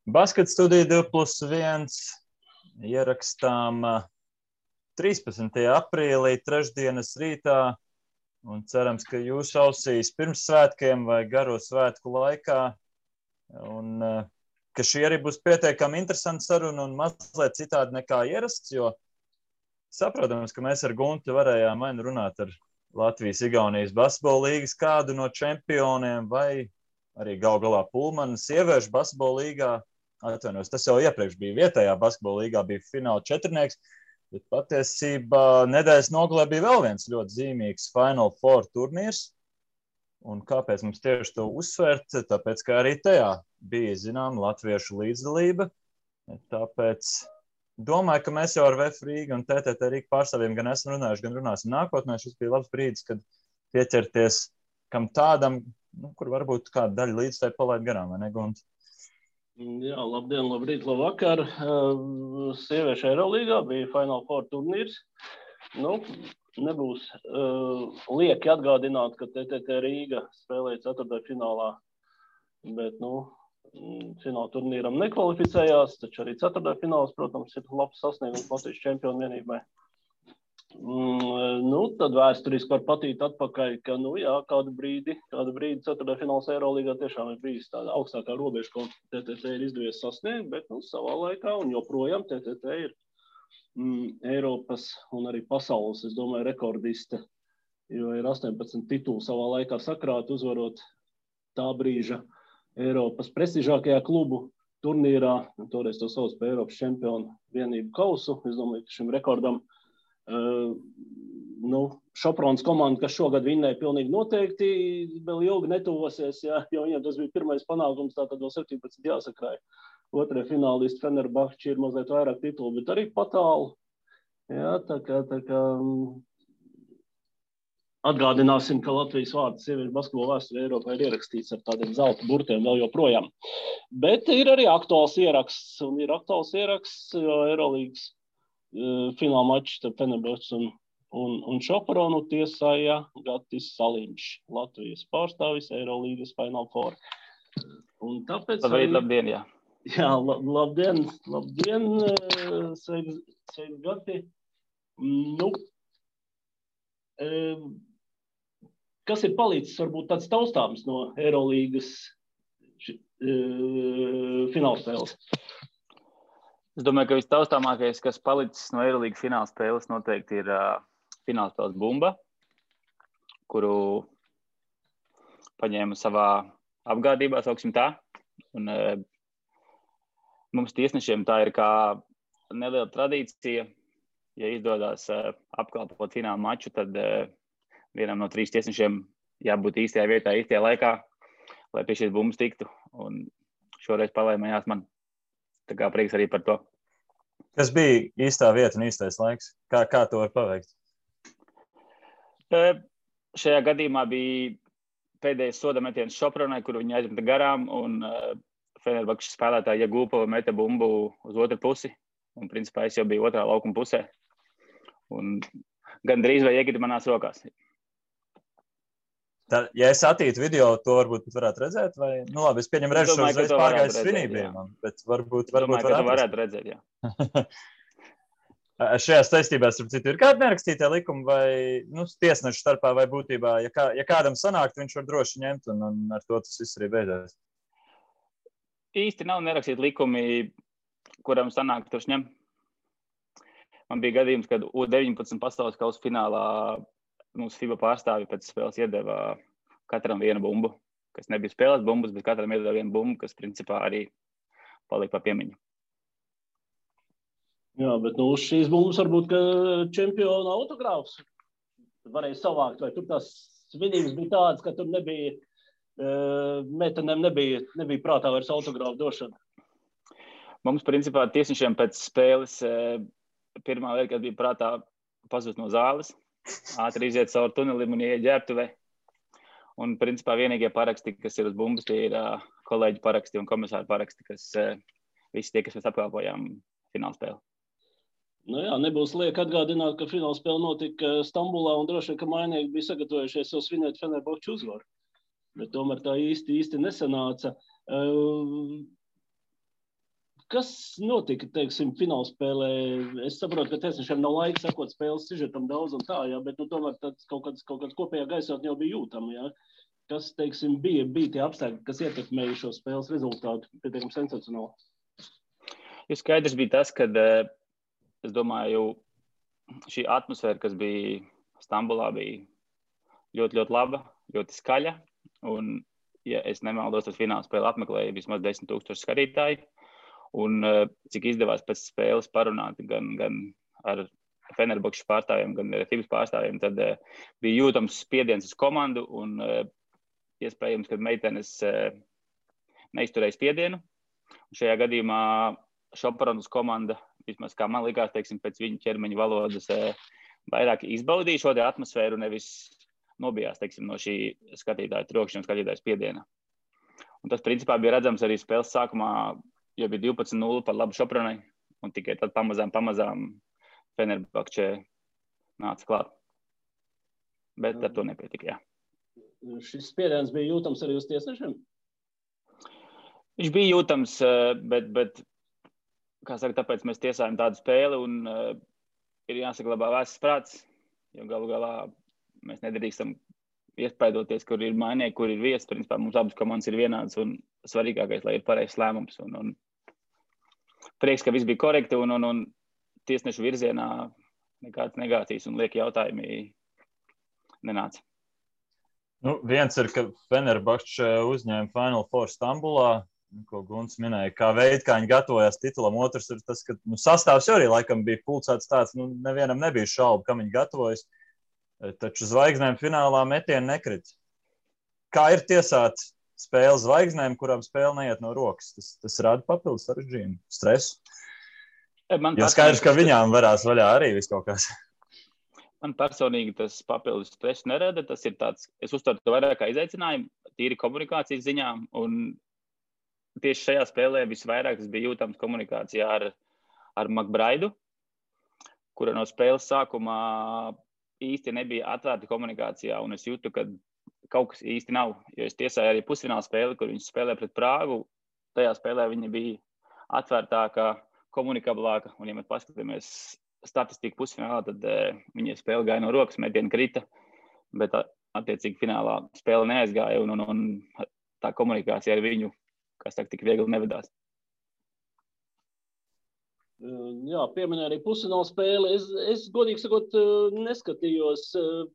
Basket studija 2+1 ierakstām 13. aprīlī, trešdienas rītā, un cerams, ka jūs ausīs pirms svētkiem vai garo svētku laikā, un ka šī arī būs pietiekami interesanta saruna un mazliet citādi nekā ierasts, jo saprotams, ka mēs ar Guntu varējām vai nu runāt ar Latvijas-Igaunijas basketbola līgas kādu no čempioniem vai arī gal galā Pulmana sieviešu basketbola līgā. Atvainojos, tas jau iepriekš bija vietējā basketbola līgā, bija fināla četrnieks, bet patiesībā nedēļas nogalē bija vēl viens ļoti zīmīgs Final Four turnīrs. Un kāpēc mums tieši to uzsvērt? Tāpēc, ka arī tajā bija, zinām, latviešu līdzdalība. Tāpēc domāju, ka mēs jau ar VF Rīga un TTT Rīga pārstāvjiem gan esam runājuši, gan runāsim nākotnē. Šis bija labs brīdis, kad pieķerties kam tādam, kur varbūt kāda daļa līdzstāja palaid garām, vai ne, Gunta? Jā, labdien, labrīt, labvakar. Sieviešu Eirolīgā bija Final Four turnīrs. Nebūs lieki atgādināt, ka TTT Rīga spēlēja ceturtdaļfinālā, bet, fināla turnīram nekvalificējās, taču arī ceturtdaļfināls, protams, ir labs sasniegums Latvijas čempionu vienībai. Tad vēsturiski var patīt atpakaļ, ka, kādu brīdi ceturtdaļfināls Eirolīgā tiešām ir bijis tāda augstākā robeža, ko TTT ir izdevies sasniegt, bet, savā laikā un joprojām TTT ir Eiropas un arī pasaules, es domāju, rekordiste, jo ir 18 tituli savā laikā sakrāti, uzvarot tā brīža Eiropas prestižākajā klubu turnīrā, toreiz to sauc par Eiropas čempionu vienību kausu. Es domāju, ka šim rekordam Šoprons komanda, kas šogad vinnēja, pilnīgi noteikti vēl ilgi netuvosies, jo viņiem tas bija pirmais panākums, tātad vēl 17 jāsakrāja. Otrie finālisti Fenerbahči ir mazliet vairāk titulu, bet arī patālu. Jā, tā kā atgādināsim, ka Latvijas vārds sieviešu basketbola vēsturē Eiropā ir ierakstīts ar tādiem zelta burtiem vēl joprojām. Bet ir arī aktuāls ieraksts, jo Eirolīgas fināla mačs starp Fenerbahči un Šopronu tiesāja Gatis Saliņš, Latvijas pārstāvis Eirolīgas Final Four. Un tāpēc labdien, jā. Jā, labdien, sveiki, Gati. Kas ir palicis, varbūt tāds taustāms no Eirolīgas finālspēles? Es domāju, ka vistaustāmākais, kas palicis no Eirolīgas finālspēles, noteikti ir finālspēles bumba, kuru paņēma savā apgādībā, sauksim tā. Un mums tiesnešiem tā ir kā neliela tradīcija. Ja izdodas apkalpot fināla maču, tad vienam no 3 tiesnešiem jābūt īstajā vietā, īstajā laikā, lai pie šīs bumbas tiktu. Un šoreiz palaimējās man. Tā kā prieks arī par to. Kas bija īstā vieta un īstais laiks? Kā to var paveikt? Šajā gadījumā bija pēdējais soda metiens Šopronai, kuru viņi aizmeta garām, un Fenerbahčes spēlētāji Jagūpova meta bumbu uz otru pusi. Un, principā, es jau biju otrā laukuma pusē. Un gandrīz vai iekrita manās rokās. Ja es attītu video, to varbūt varētu redzēt? Vai? Labi, es pieņemu redzu šo uzreiz pārgājus svinībiem, bet varbūt varētu redzēt, jā. Šajās saistībās, starp citu, ir kādi nerakstītie likumi vai tiesnešu starpā vai būtībā, ja kādam sanākt, viņš var droši ņemt un ar to tas viss arī beidzās? Īsti nav nerakstīti likumi, kuram sanāk tur ņem. Man bija gadījums, kad U19 pasaules kausa finālā mums FIBA pārstāvi pēc spēles iedeva katram vienu bumbu, kas nebija spēles bumbas, bet katram iedeva vienu bumbu, kas principā arī palika pa piemiņu. Jā, bet uz šīs bumbas varbūt, ka čempiona autogrāfs varēja savākt, vai tur tās svinības bija tādas, ka tur nebija, meitenēm nebija prātā vairs autogrāfu došana. Mums, principā, tiesnešiem pēc spēles pirmā lieta, kad bija prātā pazust no zāles, ātri iziet caur tunelim un ieiet ģērbtuvē. Un, principā, vienīgie paraksti, kas ir uz bumbas, tie ir kolēģi paraksti un komisāri paraksti, kas visi tie, kas mēs apkalpojām finālspēli. Jā, nebūs lieki atgādināt, ka finālspēle notika Stambulā un droši vien, ka mainieki bija sagatavojušies jau svinēt Fenerbahču uzvaru. Bet tomēr tā īsti nesanāca. Kas notika, teiksim, finālspēlē? Es saprotu, ka tiesnešiem nav laika sakot spēles sižetam daudz un tā, jā, bet tomēr kaut kāds kopējā gaisotne jau bija jūtama, jā. Kas, teiksim, bija tie apstākļi, kas ietekmēja šo spēles rezultātu pietiekami sensacionāli? Jo skaidrs bija tas, ka, es domāju, šī atmosfēra, kas bija Stambulā, bija ļoti, ļoti laba, ļoti skaļa. Un, ja es nemaldos, tad finālspēli apmeklēja vismaz 10,000 skatītāji. Un cik izdevās pēc spēles parunāt gan ar Fenerbahčes pārstāvjiem, gan ar Fibas pārstāvjiem, tad bija jūtams spiediens uz komandu un iespējams, ka meitenes neizturēja spiedienu. Un šajā gadījumā Šoparonas komanda, vismaz kā man likās, teiksim, pēc viņu ķermeņa valodas, vairāk izbaudīja šo atmosfēru, nevis nobijās, teiksim, no šī skatītāja trokšņa un skatītāja spiediena. Un tas, principā, bija redzams arī spēles sākumā, jo bija 12-0 par labu Šoparonai, un tikai tad pamazām Fenerbahče nāca klāt. Bet ar to nepietika, jā. Šis spiediens bija jūtams arī uz tiesnešiem? Viņš bija jūtams, bet kā saka, tāpēc mēs tiesājam tādu spēli un ir jāsaglabā vēsts prāts, jo galu galā mēs nedrīkstam iespaidoties, kur ir mainīgi, kur ir vietas. Principā mums abas komandas ir vienādas un svarīgākais, lai ir pareizs lēmums. Un prieks, ka viss bija korekti un tiesnešu virzienā nekādas negācijas un lieki jautājumi nenāca. Nu, viens ir, ka Fenerbahče uzņēma Final Four Stambulā, ko Gunts minēja, kā veids, kā viņi gatavojās titulam. Otrs ir tas, ka sastāvs arī laikam bija pulcēts tāds, nevienam nebija šaubu, kam viņi gatavojas. Taču zvaigznēm finālā metieni nekrit. Kā ir tiesāt spēli zvaigznēm, kurām spēle neiet no rokas? Tas rada papildus sarežģījumu, stresu. Jo skaidrs, ka viņām varās vaļā arī viss kaut kas. Man personīgi tas papildus stresu nerada. Tas ir tāds, es uztveru to vairāk kā izaicinājumu, tīri komunikācijas ziņā. Un tieši šajā spēlē visvairāk tas bija jūtams komunikācijā ar Makbraidu, kura no spēles sākumā īsti nebija atvērta komunikācijā, un es jūtu, ka kaut kas īsti nav, jo es tiesāju arī pusfināla spēli, kur viņi spēlē pret Prāgu. Tajā spēlē viņa bija atvērtāka, komunikablāka, un ja mēs paskatāmies statistiku pusfinālā, tad viņa spēle gāja no rokas, metieni krita, bet attiecīgi finālā spēle neaizgāja, un tā komunikācija ar viņu, kas tā tik viegli nevedās. Jā, pieminēja arī pusfināla spēli. Es godīgi sakot, neskatījos,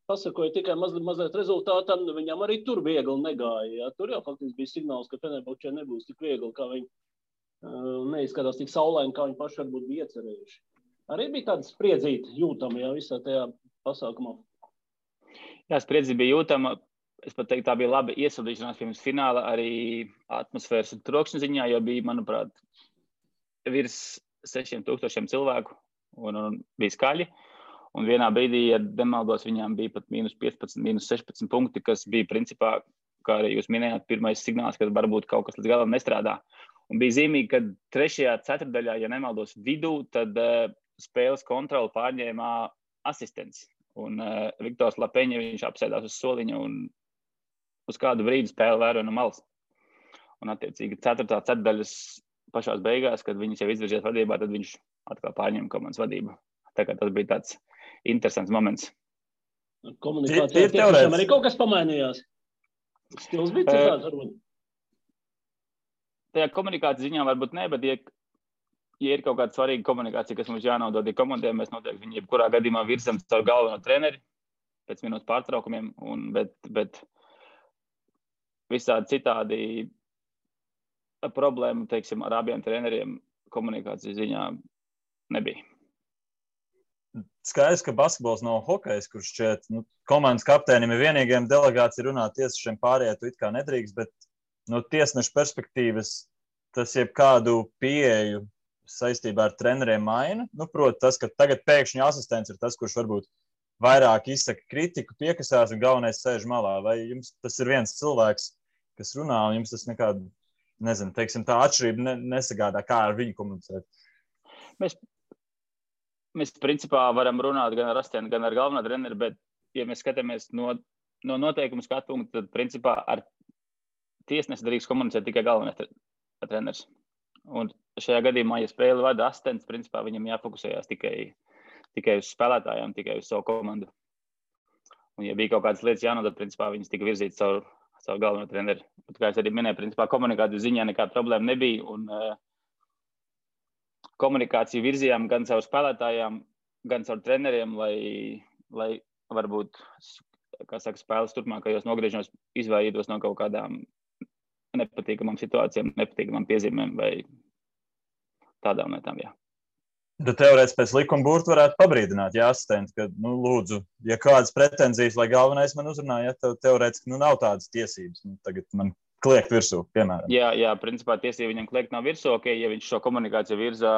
pasakoju tikai mazliet rezultātam. Viņam arī tur viegli negāja. Jā. Tur jau faktiski bija signāls, ka Fenerbahčē nebūs tik viegli, kā viņi neizskatās tik saulaini, kā viņi paši varbūt bija iecerējuši. Arī bija tāda spriedzīta jūtama, jā, visā tajā pasākumā. Jā, spriedzīta bija jūtama. Es pat teiktu, tā bija laba iesildīšanās pirms fināla arī atmosfēras un trokšņa ziņā, jo bija, manuprāt, virs 6,000 cilvēku un bija skaļi. Un vienā brīdī, ja nemaldos, viņām bija pat -15, -16 punkti, kas bija principā, kā arī jūs minējāt, pirmais signāls, ka varbūt kaut kas līdz galam nestrādā. Un bija zīmīgi, ka 3. ceturtdaļā, ja nemaldos vidū, tad spēles kontroli pārņēmā asistents. Un Viktors Lapeņa, viņš apsēdās uz soliņa un uz kādu brīdi spēle vēroja no malas. Un attiecīgi 4. ceturtdaļas pašās beigās, kad viņas jau izvirzījās vadībā, tad viņš atkal pārņēma komandas vadību. Tā kā tas bija tāds interesants moments. Komunikācijā tiešām arī kaut kas pamainījās. Stils bija citāds varbūt. Tajā komunikācijas ziņā varbūt ne, bet ja ir kaut kāda svarīga komunikācija, kas mums jānodod komandiem, mēs noteikti viņu jebkurā gadījumā virzam caur galveno treneri pēc minūtes pārtraukumiem, bet visādi citādi problēma, teiksim, ar abiem treneriem komunikācijas ziņā nebija. Skaidrs, ka basketbols nav hokejs, kurš šķiet, komandas kapteinim ir vienīgiem delegācija runāt tiesnešiem pārējie, tu it kā nedrīkst, bet no tiesneša perspektīvas tas jebkādu pieeju saistībā ar treneriem maina. Proti tas, ka tagad pēkšņi asistents ir tas, kurš varbūt vairāk izsaka kritiku, piekasās un galvenais sēž malā. Vai jums tas ir viens cilvēks, kas runā, un jums tas nekādu, nezinu, teiksim, tā atšķirība nesagādā, kā ar viņu komunicēt? Mēs principā varam runāt gan ar asistentu, gan ar galveno treneri, bet, ja mēs skatāmies no noteikumu skatu punktu, tad principā ar tiesnesi drīkst komunicēt tikai galvenais treneris. Un šajā gadījumā, ja spēli vada asistents, principā viņam jāfokusējās tikai uz spēlētājiem, tikai uz savu komandu. Un, ja bija kaut kādas lietas jānodod, principā viņas tika virzītas caur galveno treneri. Bet, kā es arī minēju, principā komunikācijas ziņā nekāda problēma nebija. Un komunikāciju virzījām gan caur spēlētājiem, gan caur treneriem, lai varbūt, kā saka, spēles turpmākajos nogriežņos izvairītos no kaut kādām nepatīkamām situācijām, nepatīkamām piezīmēm vai tādām lietām, jā. Tad teorētiski pēc likuma burta varētu pabrīdināt, ja asistenti, ka, lūdzu, ja kādas pretenzijas, lai galvenais man uzrunā, ja teorētiski, nav tādas tiesības, tagad man kliegt virsū, piemēram. Jā, principā tiesība viņam kliegt nav virsū, ja viņš šo komunikāciju virzā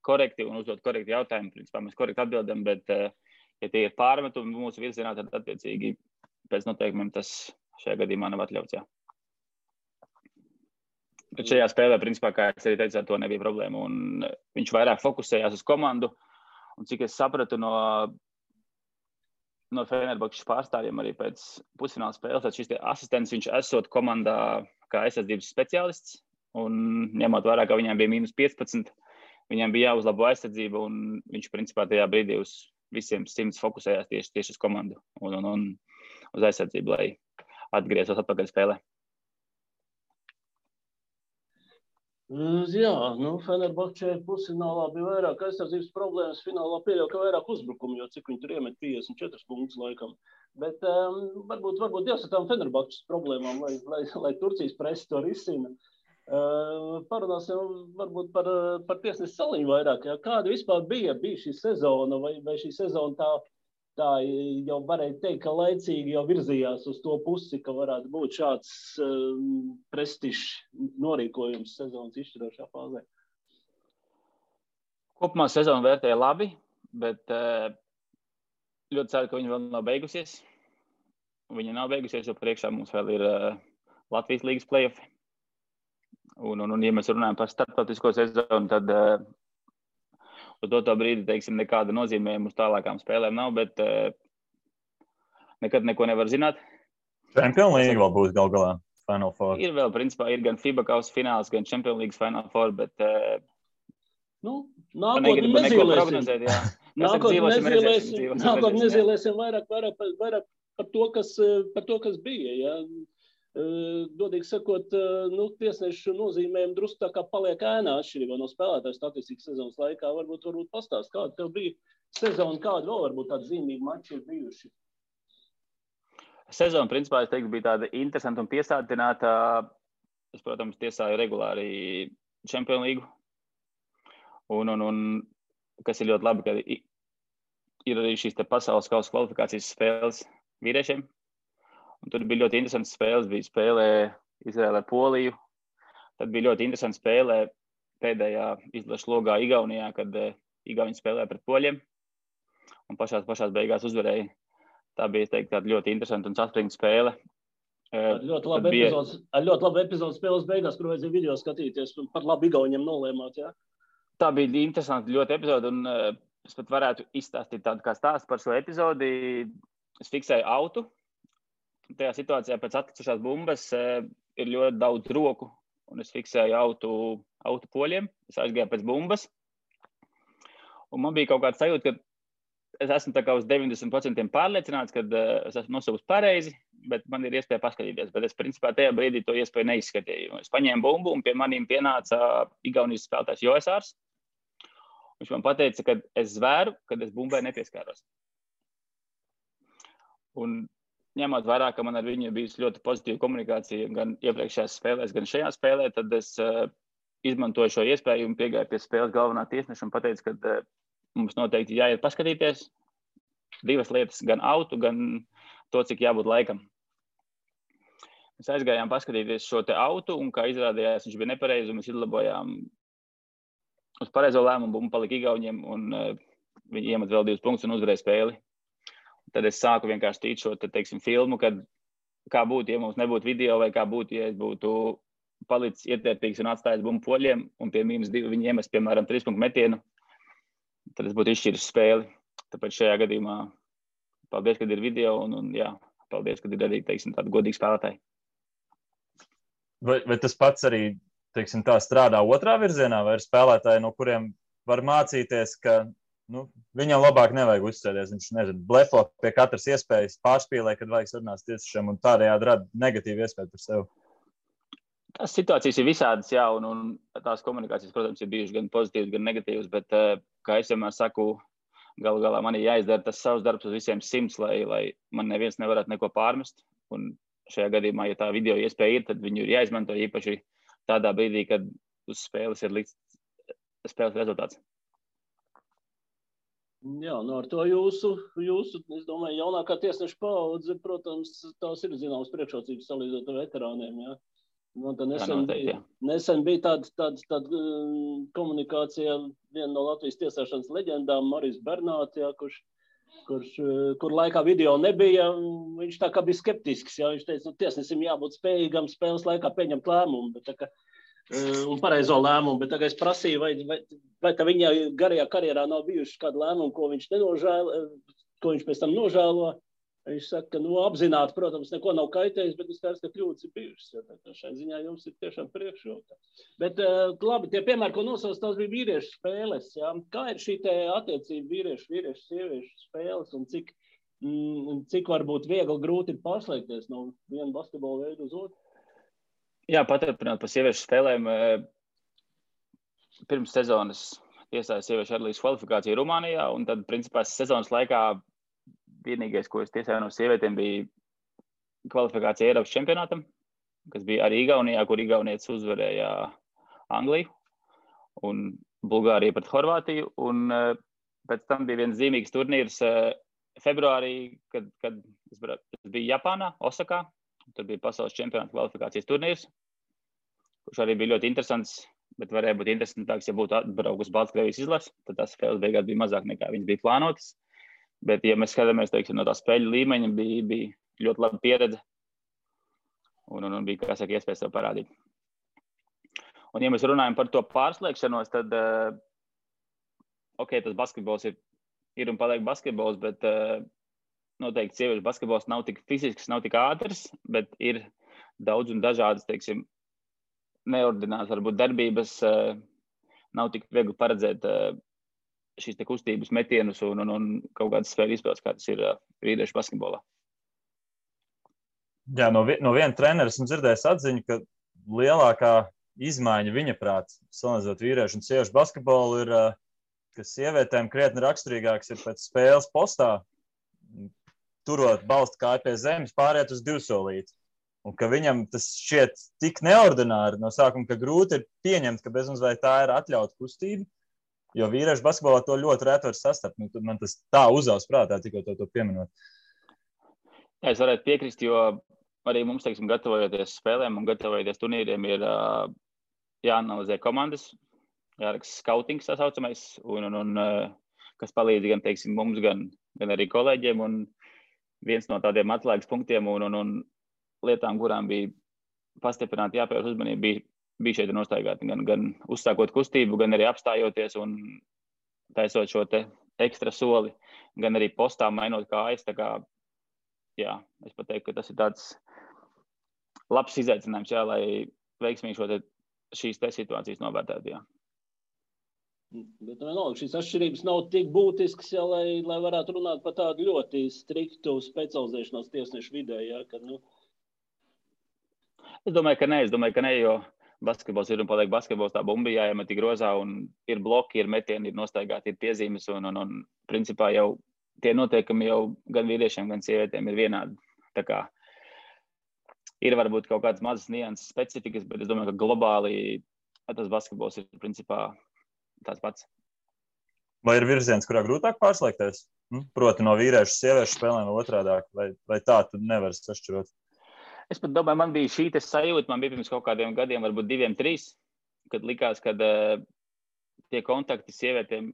korekti un uzdot korekti jautājumu, principā mēs korekti atbildam, bet, ja tie ir pārmetumi mūsu virzienā, tad attiecīgi pēc noteikumiem tas šajā gadījumā nav atļauts, jā. Bet šajā spēlē, principā, kā es arī teicu, ar to nebija problēma. Un viņš vairāk fokusējās uz komandu. Un cik es sapratu no Fenerbahčes pārstāvjiem arī pēc pusfināla spēles, tad šis asistents viņš esot komandā kā aizsardzības speciālists. Un ņemot vērā, ka viņiem bija -15, viņiem bija jāuzlabo aizsardzība. Un viņš, principā, tajā brīdī uz visiem 100 fokusējās tieši uz komandu un uz aizsardzību, lai atgrieztos atpakaļ spēlē. Jā, Fenerbahčē pusfinālā bija vairāk aizsardzības problēmas, finālā pieļauj, ka vairāk uzbrukumu, jo cik viņi tur iemet 54 punktus laikam. Bet varbūt jāsaka tām Fenerbahčes problēmām, lai Turcijas presi to risina. Parunāsim varbūt par tiesnesi Saliņu vairāk. Ja? Kāda vispār bija šī sezona, vai šī sezona tā jau varēja teikt, ka laicīgi jau virzījās uz to pusi, ka varētu būt šāds prestižs norīkojums sezonas izšķirošā fāzē? Kopumā sezonu vērtēja labi, bet ļoti ceru, ka viņa vēl nav beigusies. Viņa nav beigusies, jo priekšā mums vēl ir Latvijas līgas play-offi. Un, ja mēs runājam par starptautisko sezonu, tad uz to brīdi, teiksim, nekāda nozīmējuma uz tālākām spēlēm nav, bet nekad neko nevar zināt. Champions League vēl būs gal galā Final Four. Ir vēl, principā, ir gan FIBA kausa fināls, gan Champions League Final Four, bet nākotnē nezīlēsim. Nākotnē nezīlēsim vairāk par to, kas bija. Ja? Godīgi sakot, tiesnešu nozīmējumu drusku tā kā paliek ēnā atšķirībā no spēlētāju statistikas sezonas laikā. Varbūt pastāst, kāda tev bija sezona, kāda vēl varbūt tāda zīmīga mači ir bijuši? Sezona, principā, es teiktu, bija tāda interesanta un piesātināta. Es, protams, tiesāju regulāri Champions League. Un kas ir ļoti labi, ka ir arī šīs pasaules kausa kvalifikācijas spēles vīriešiem. Un tur bija ļoti interesants spēles. Bija spēlē Izraēlē Poliju. Tad bija ļoti interesants spēlē pēdējā izlaša logā Igaunijā, kad Igauni spēlēja pret poļiem. Un pašās beigās uzvarēja. Tā bija, es teiktu, tāda ļoti interesanta un saspringta spēle. Ar ļoti labu epizodu spēles beigās, kur vajadzēja video skatīties, par labu Igauniem nolēmāt, jā? Tā bija interesanta ļoti epizode, un es pat varētu izstāstīt tādu kā stāstu par šo epizodi. Es fiksēju autu. Tajā situācijā pēc atkritušās bumbas ir ļoti daudz roku, un es fiksēju autu poļiem. Es aizgāju pēc bumbas, un man bija kaut kāds sajūta, ka es esmu tā kā uz 90% pārliecināts, ka es esmu nosaucis pareizi, bet man ir iespēja paskatīties. Bet es, principā, tajā brīdī to iespēju neizskatīju. Es paņēmu bumbu, un pie maniem pienāca Igaunijas spēlētājs Joesārs. Viņš man pateica, ka es zvēru, kad es bumbai nepieskāros. Un ņemot vērā, ka man ar viņu bijusi ļoti pozitīva komunikācija gan iepriekšējās spēlēs, gan šajā spēlē, tad es izmantoju šo iespēju un piegāju pie spēles galvenā tiesneša un pateicu, ka mums noteikti jāiet paskatīties divas lietas, gan autu, gan to, cik jābūt laikam. Mēs aizgājām paskatīties šo te autu, un kā izrādījās, viņš bija nepareizi, un mēs izlabojām uz pareizo lēmumu, bumba palika Igauniem, un viņi iemet vēl 2 punktus un uzvarēja spēli. Tad es sāku vienkārši tīt šo, teiksim, filmu, kad kā būtu, ja mums nebūtu video, vai kā būtu, ja es būtu palicis ietērpīgs un atstājis bumbu poļiem, un pie -2 viņi iemest, piemēram, 3 punktu metienu, tad es būtu izšķiris spēli. Tāpēc šajā gadījumā paldies, kad ir video, un jā, paldies, kad ir arī, teiksim, tādi godīgi spēlētāji. Vai tas pats arī teiksim, tā strādā otrā virzienā, vai ir spēlētāji, no kuriem var mācīties, ka viņam labāk nevajag uzsēties. Viņš, nezinu, blefo pie katras iespējas, pārspīlē, kad vajag sarunāt tiesišiem, un tādējādi rada negatīvu iespēju par sevi. Tās situācijas ir visādas, jā, un tās komunikācijas, protams, ir bijušas gan pozitīvas, gan negatīvas, bet, kā es vienmēr saku, galu galā man ir jāizdara tas savs darbs uz visiem 100, lai man neviens nevarētu neko pārmest. Un šajā gadījumā, ja tā video iespēja ir, tad viņu ir jāizmanto īpaši tādā brīdī, kad uz spēles ir likts spēles rezultāts. Jā, ar to jūsu, es domāju, jaunākā tiesneša paudze, protams, tās ir zināmas priekšrocības salīdzinot ar veterāniem, jā. Man tā nesen bija tāda komunikācija viena no Latvijas tiesāšanas leģendām, Marijs Bernāts, jā, kur laikā video nebija, viņš tā kā bija skeptisks, jā, viņš teica, tiesnesim jābūt spējīgam spēles laikā pieņemt lēmumu, bet tā kā, un pareizo lēmumu, bet tagad es prasīju, vai tā viņa garajā karjerā nav bijuši kādi lēmumi, ko viņš pēc tam nožēlo. Viņš saka, ka apzināti, protams, neko nav kaitējis, bet es skaidrs, ka kļūdas ir bijušas. Ja, šai ziņā jums ir tiešām priekšroka. Bet labi, tie piemēri, ko nosauc, tās bija vīriešu spēles. Ja? Kā ir šī attiecība vīriešu, sieviešu spēles un cik varbūt viegli grūti ir pārslēgties no viena basketbola veidu uz otru? Jā, paturpināt par sieviešu spēlēm. Pirms sezonas tiesāja sieviešu atlīdz kvalifikāciju Rumānijā, un tad, principā, sezonas laikā vienīgais, ko es tiesāju no sievietēm, bija kvalifikācija Eiropas čempionātam, kas bija arī Igaunijā, kur igaunietis uzvarēja Angliju un Bulgāriju pret Horvātiju. Un pēc tam bija viens zīmīgs turnīrs februārī, kad es biju Japānā, Osakā. Tur bija pasaules čempionāta kvalifikācijas turnīrs, kurš arī bija ļoti interesants, bet varēja būt interesantāks, ja būtu atbraukus Baltkrievijas izlase. Tad tās spēles beigās bija mazāk nekā viņas bija plānotas. Bet, ja mēs skatāmies, teiksim, no tā spēļu līmeņa, bija ļoti laba pieredze un bija, kā saka, iespēja sev parādīt. Un, ja mēs runājam par to pārslēgšanos, tad, tas basketbols ir un paliek basketbols, bet noteikti sieviešu basketbols nav tik fizisks, nav tik ātrs, bet ir daudz un dažādas, teiksim, neordinātas, varbūt darbības, nav tik viegli paredzēt šīs te kustības metienus un kaut kādas spēļu izpildes, kā tas ir vīriešu basketbolā. Jā, no viena trenera esmu dzirdējis atziņu, ka lielākā izmaiņa viņa prāt, salīdzinot vīriešu un sieviešu basketbolu, ir, ka sievietēm krietni raksturīgāks ir pēc spēles postā, turot balstu kāju pie zemes, pāriet uz divsolīti. Un ka viņam tas šķiet tik neordināri no sākuma, ka grūti ir pieņemt, ka bezmazliet tā ir atļauta kustība. Jo vīriešu basketbolā to ļoti reti var sastapt. Man tas tā uzaugs prātā, tikko to pieminot. Jā, es varētu piekrist, jo arī mums, teiksim, gatavojoties spēlēm un gatavojoties turnīriem, ir jāanalizē komandas, jāraksta skautings, tā saucamais, un kas palīdz gan, teiksim, mums, gan arī kolēģiem. Un viens no tādiem atslēgas punktiem un lietām, kurām bija pastiprināti jāpievērš uzmanība, bija šeit nostaigāti, gan uzsākot kustību, gan arī apstājoties un taisot šo te ekstra soli, gan arī postā mainot kājas. Tā kā, jā, es pat teiktu, ka tas ir tāds labs izaicinājums, jā, lai veiksmīgi šīs te situācijas novērtētu, jā. Bet vienalga, šīs atšķirības nav tik būtiskas, jā, lai varētu runāt par tādu ļoti striktu specializēšanos tiesnešu vidē, jā, kad, Es domāju, ka ne, jo basketbols ir un paliek basketbols, tā bumba jāiemet grozā un ir bloki, ir metieni, ir nostaigāti, ir piezīmes un principā jau tie noteikumi jau gan vīriešiem, gan sievietēm ir vienādi. Tā kā ir varbūt kaut kādas mazas nianses specifikas, bet es domāju, ka globāli tas basketbols ir principā tāds pats. Vai ir virziens, kurā grūtāk pārslēgties? Proti no vīriešu sieviešu spēlēm vai otrādāk, vai tā tu nevari sašķirot? Es pat domāju, man bija šī sajūta, man bija pirms kaut kādiem gadiem, varbūt 2, 3, kad likās, ka tie kontakti sievietēm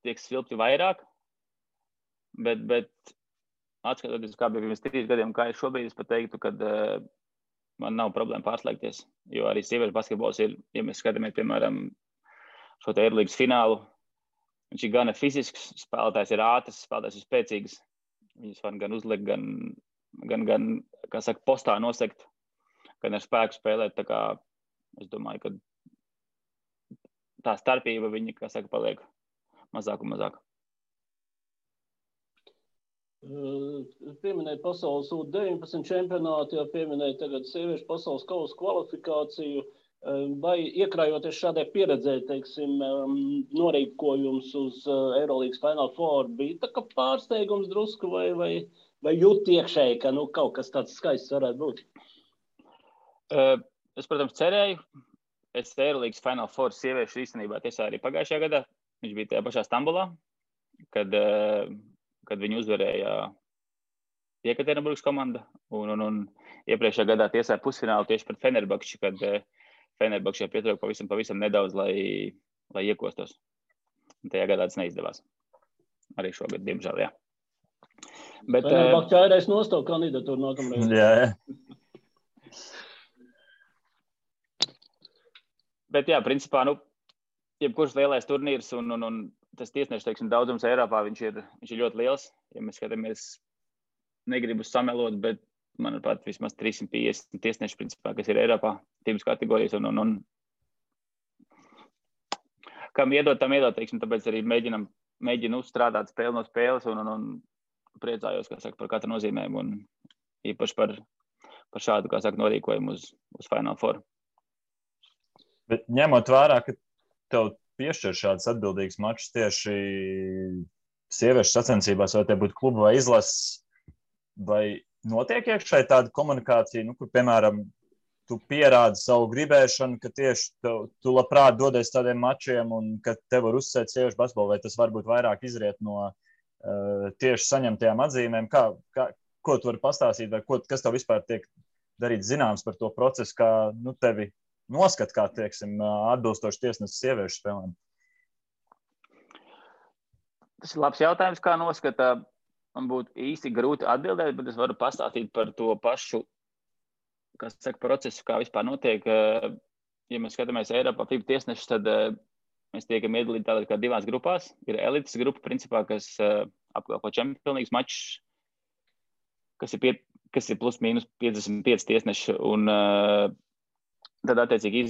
tiek svilpti vairāk, bet atskatoties, kā bija pirms 3 gadiem, kā es šobrīd, es pat teiktu, ka man nav problēma pārslēgties, jo arī sieviešu basketbols ir, ja mēs skatāmies, piemēram, šo te Eirolīgas finālu, viņš ir gana fizisks, spēlētājs ir ātrs, spēlētājs ir spēcīgs, viņas var gan uzlikt, gan kā saka, postā nosegt, gan ar spēku spēlēt. Tā kā es domāju, ka tā starpība viņa, kā saka, paliek mazāk un mazāk. Pieminēt pasaules U19 čempionātu, jau pieminēt tagad sieviešu pasaules kausa kvalifikāciju, vai iekrājoties šādai pieredzē, teiksim, norīkojums uz Eurolīgas Final Four, bija tā kā pārsteigums drusku vai jūt iekšēji, ka kaut kas tāds skaists varētu būt? Es, protams, cerēju. Es Eurolīgas Final Four sieviešu īstenībā tiesā arī pagājušajā gadā. Viņš bija tajā pašā Stambulā, kad viņi uzvarēja Jekaterinburgas komanda. Un iepriekšējā gadā tiesāja pusfinālu tieši pret Fenerbahči, kad Fenerbahčai pietrūka pavisam nedaudz, lai iekostos. Un tajā gadā tas neizdevās. Arī šogad, diemžēl, jā. Bet Fenerbahčai aireiz nostāv kandidatūru nākamreiz. Jā. Bet jā, principā, jebkurš lielais turnīrs un tas tiesnešu, teiksim, daudzums Eiropā, viņš ir ļoti liels. Ja mēs skatāmies, negribu samelot, bet manuprāt, vismaz 350 tiesneši, principā, kas ir Eiropā, tīpas kategorijas, un kam iedot, teiksim, tāpēc arī mēģinu strādāt spēli no spēles, un priecājos, kā saka, par katru nozīmēm, un īpaši par šādu, kā saka, norīkojumu uz Final Four. Bet ņemot vērā, ka tev piešķir šāds atbildīgs mačs tieši sieviešu sacensībās, vai te būtu kluba vai izlases, vai notiek iekšēji tāda komunikācija, kur, piemēram, tu pierādi savu gribēšanu, ka tieši tu labprāt dodies tādiem mačiem un ka tev var uzsēt sieviešu basketbolu, vai tas varbūt vairāk izriet no tieši saņemtajām atzīmēm? Ko tu vari pastāstīt, vai kas tev vispār tiek darīts zināms par to procesu, kā tevi noskat, kā, teiksim, atbilstoši tiesnesis sieviešu spēlēm? Tas ir labs jautājums, kā noskata. Man būtu īsti grūti atbildēt, bet es varu pastāstīt par to pašu, kas saka, procesu, kā vispār notiek. Ja mēs skatāmies Eiropā FIBA tiesnešus, tad mēs tiekam iedalīti tādā kā divās grupās. Ir elites grupa, principā, kas apkalpo čempionīgas mačus, kas ir plus mīnus 55 tiesneši. Un tad, attiecīgi,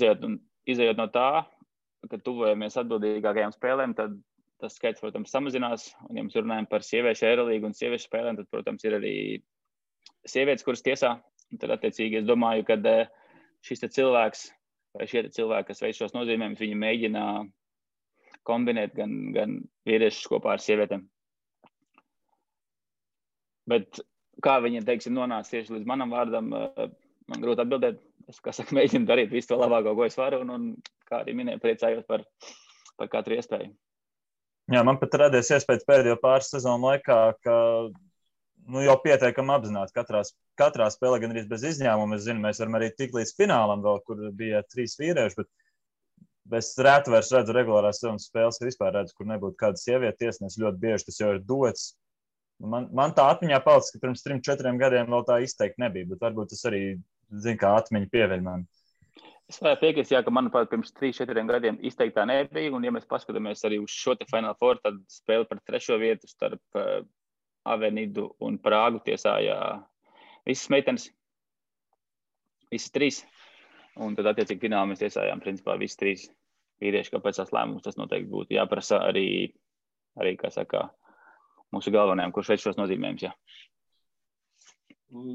izējot no tā, kad tuvojamies atbildīgākajām spēlēm, tad tas skaits, protams, samazinās. Un, ja mēs runājam par sieviešu Eirolīgu un sieviešu spēlēm, tad, protams, ir arī sievietes, kuras tiesā. Un tad, attiecīgi, es domāju, ka šis cilvēks vai šie cilvēki, kas veic šos nozīmējumus, viņi mēģina kombinēt gan vīriešus kopā ar sievietēm. Bet kā viņi, teiksim, nonāca tieši līdz manam vārdam, man grūti atbildēt. Es, kā saka, mēģinu darīt visu to labāko, ko es varu, un kā arī minēju, priecājos par katru iespēju. Jā, man pat radies iespējas pēdējo pāris sezonu laikā, ka jau pietiekami apzināti katrā spēlē, gan arī bez izņēmuma. Es zinu, mēs varam arī tikt līdz finālam vēl, kur bija 3 vīrieši, bet es reti vairs redzu regulārās sezonas spēles, ka vispār redzu, kur nebūtu kāda sieviete tiesnesis. Ļoti bieži tas jau ir dots. Man tā atmiņā palicis, ka pirms 3-4 gadiem vēl tā izteikti nebija, bet varbūt tas arī, kā atmiņa pieviļ man. Es varētu piekrist, ka, manuprāt, pirms 3-4 gadiem izteiktā nebija, un ja mēs paskatāmies arī uz šo te Final Four, tad spēle par 3. vietu starp Avenidu un Prāgu tiesāja visas meitenes, visas 3, un tad, attiecīgi, finālā mēs tiesājām, principā, visas 3 vīrieši, kāpēc tās lēmums tas noteikti būtu jāprasa arī, kā saka, mūsu galvenajiem, kurš veic šos nozīmējumus, jā.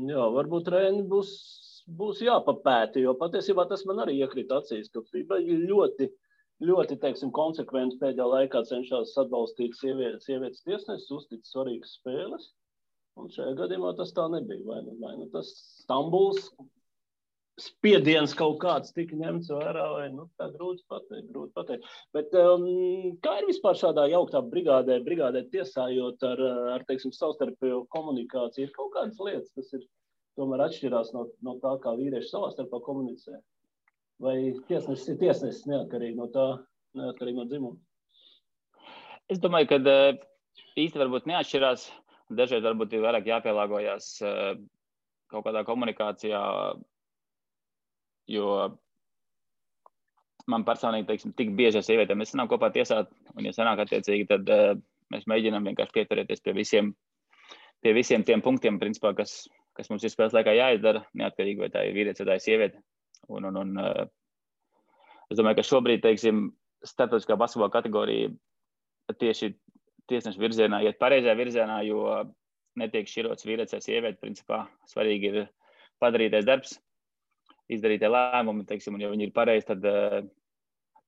Jā, varbūt Reini būs jāpapēta, jo patiesībā tas man arī iekrita acīs, ka FIBA ļoti, teiksim, konsekventi pēdējā laikā cenšas atbalstīt sievietes tiesnesis, uztic svarīgas spēles, un šajā gadījumā tas tā nebija. Vai nu tas Stambuls spiediens kaut kāds tika ņemts vērā, vai tā grūti pateikt. Bet kā ir vispār šādā jauktā brigādē tiesājot ar teiksim, savstarpējo komunikāciju? Ir kaut kādas lietas, kas ir tomēr atšķirās no tā, kā vīrieši savā starpā komunicē? Vai tiesnesis ir tiesnesis neatkarīgi no dzimuma? Es domāju, ka īsti varbūt neatšķirās. Dažreiz varbūt ir vairāk jāpielāgojas kaut kādā komunikācijā, jo man personīgi, teiksim, tik bieži ar sievietēm mēs sanāk kopā tiesāt, un ja sanāk attiecīgi, tad mēs mēģinām vienkārši pieturēties pie visiem tiem punktiem, principā, kas mums ir spēles laikā jāizdara, neatkarīgi vai tā ir vīrietis vai tā ir sieviete. Un Es domāju, ka šobrīd, teiksim, starptautiskā basketbola kategorija tieši tiesnešu virzienā iet pareizajā virzienā, jo netiek šķirots vīrietis vai sieviete. Principā svarīgi ir padarītais darbs, izdarītie lēmumi, teiksim, un ja viņi ir pareizi, tad,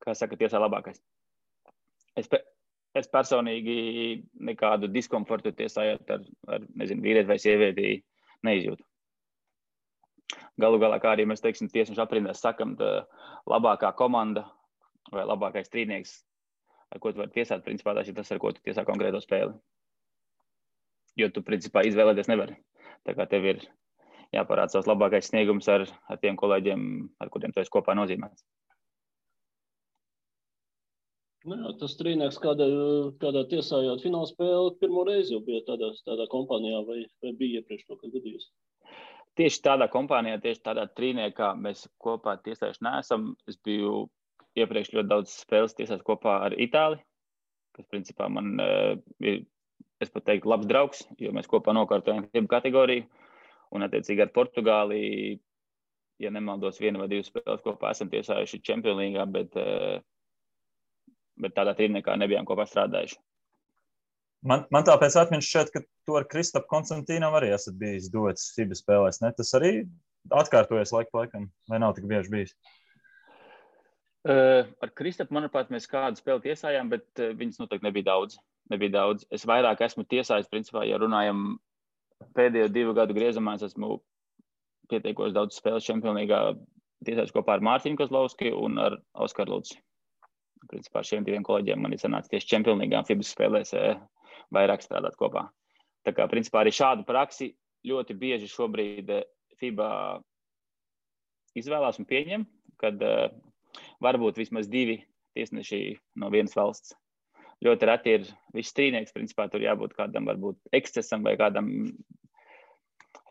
kā saka, tiesā labākais. Es personīgi nekādu diskomfortu tiesājot ar nezinu, vīrieti vai sievieti neizjūtu. Galu galā, kā arī mēs, teiksim, tiesnešu aprindās sakam, labākā komanda vai labākais strīdnieks, ar ko tu vari tiesāt, principā tas ir tas, ar ko tu tiesā konkrēto spēli. Jo tu, principā, izvēlēties nevari. Tā kā tev ir jāparāda savs labākais sniegums ar tiem kolēģiem, ar kuriem tu esi kopā nozīmēts. Jā, tas strīdnieks kādā tiesājot fināla spēli pirmo reizi jau bija tādā kompānijā vai bija iepriekš to, kad gadījus? Tieši tādā kompānijā, tieši tādā trīniekā mēs kopā tiesājuši neesam. Es biju iepriekš ļoti daudz spēles tiesās kopā ar Itāli, kas principā man ir, es pat teiktu, labs draugs, jo mēs kopā nokārtojam FIBA kategoriju. Un attiecīgi ar Portugāli, ja nemaldos, 1 vai 2 spēles kopā esam tiesājuši Champions League, bet tādā trīniekā nebijām kopā strādājuši. Man tāpēc atmiņš šķiet, ka tu ar Kristapu Konstantīnam arī esat bijis dots FIBA spēlēs, ne? Tas arī atkārtojas laikam, vai nav tik bieži bijis? Ar Kristapu, manuprāt, mēs kādu spēli tiesājām, bet viņas noteikti nebija daudz. Es vairāk esmu tiesājis, principā, ja runājam pēdējo 2 gadu griezumā, es esmu pietiekoši daudz spēles Champions League tiesājis kopā ar Mārtiņu Kozlovski un ar Oskaru Lūci. Principā šiem 2 kolēģiem man ir sanācis tieši Champions League FIBA spēlēs vairāk strādāt kopā. Tā kā, principā, arī šādu praksi ļoti bieži šobrīd FIBA izvēlās un pieņem, kad varbūt vismaz 2 tiesneši no vienas valsts. Ļoti reti ir viss strīdnieks, principā, tur jābūt kādam varbūt ekscesam vai kādam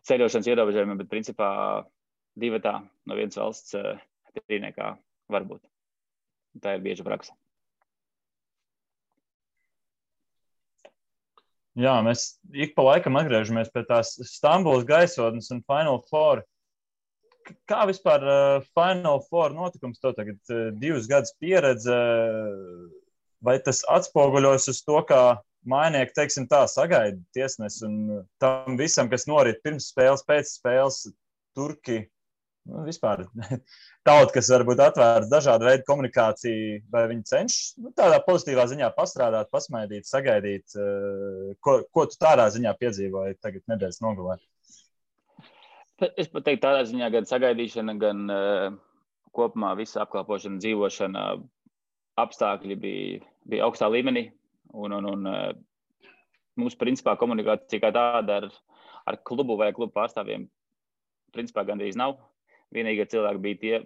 ceļošanas ierobežojumam, bet, principā, 2 no vienas valsts strīdniekā var būt. Tā ir bieža praksa. Jā, mēs ik pa laikam atgriežamies pie tās Stambulas gaisotnes un Final Four. Kā vispār Final Four notikums tev tagad 2 gadus pieredze? Vai tas atspoguļos uz to, kā mainieki, teiksim tā, sagaida tiesnes un tam visam, kas norit pirms spēles, pēc spēles, turki, vispār tauta, kas varbūt atvērts dažādu veidu komunikāciju, vai viņi cenšas tādā pozitīvā ziņā pastrādāt, pasmaidīt, sagaidīt, ko tu tādā ziņā piedzīvoji tagad nedēļas nogalē? Es pat teiktu tādā ziņā gan sagaidīšana, gan kopumā visa apkalpošana, dzīvošana, apstākļi bija augstā līmenī. Un mums, principā, komunikācija kā tāda ar klubu vai klubu pārstāvjiem, principā, gandrīz nav. Vienīgie cilvēki bija tie,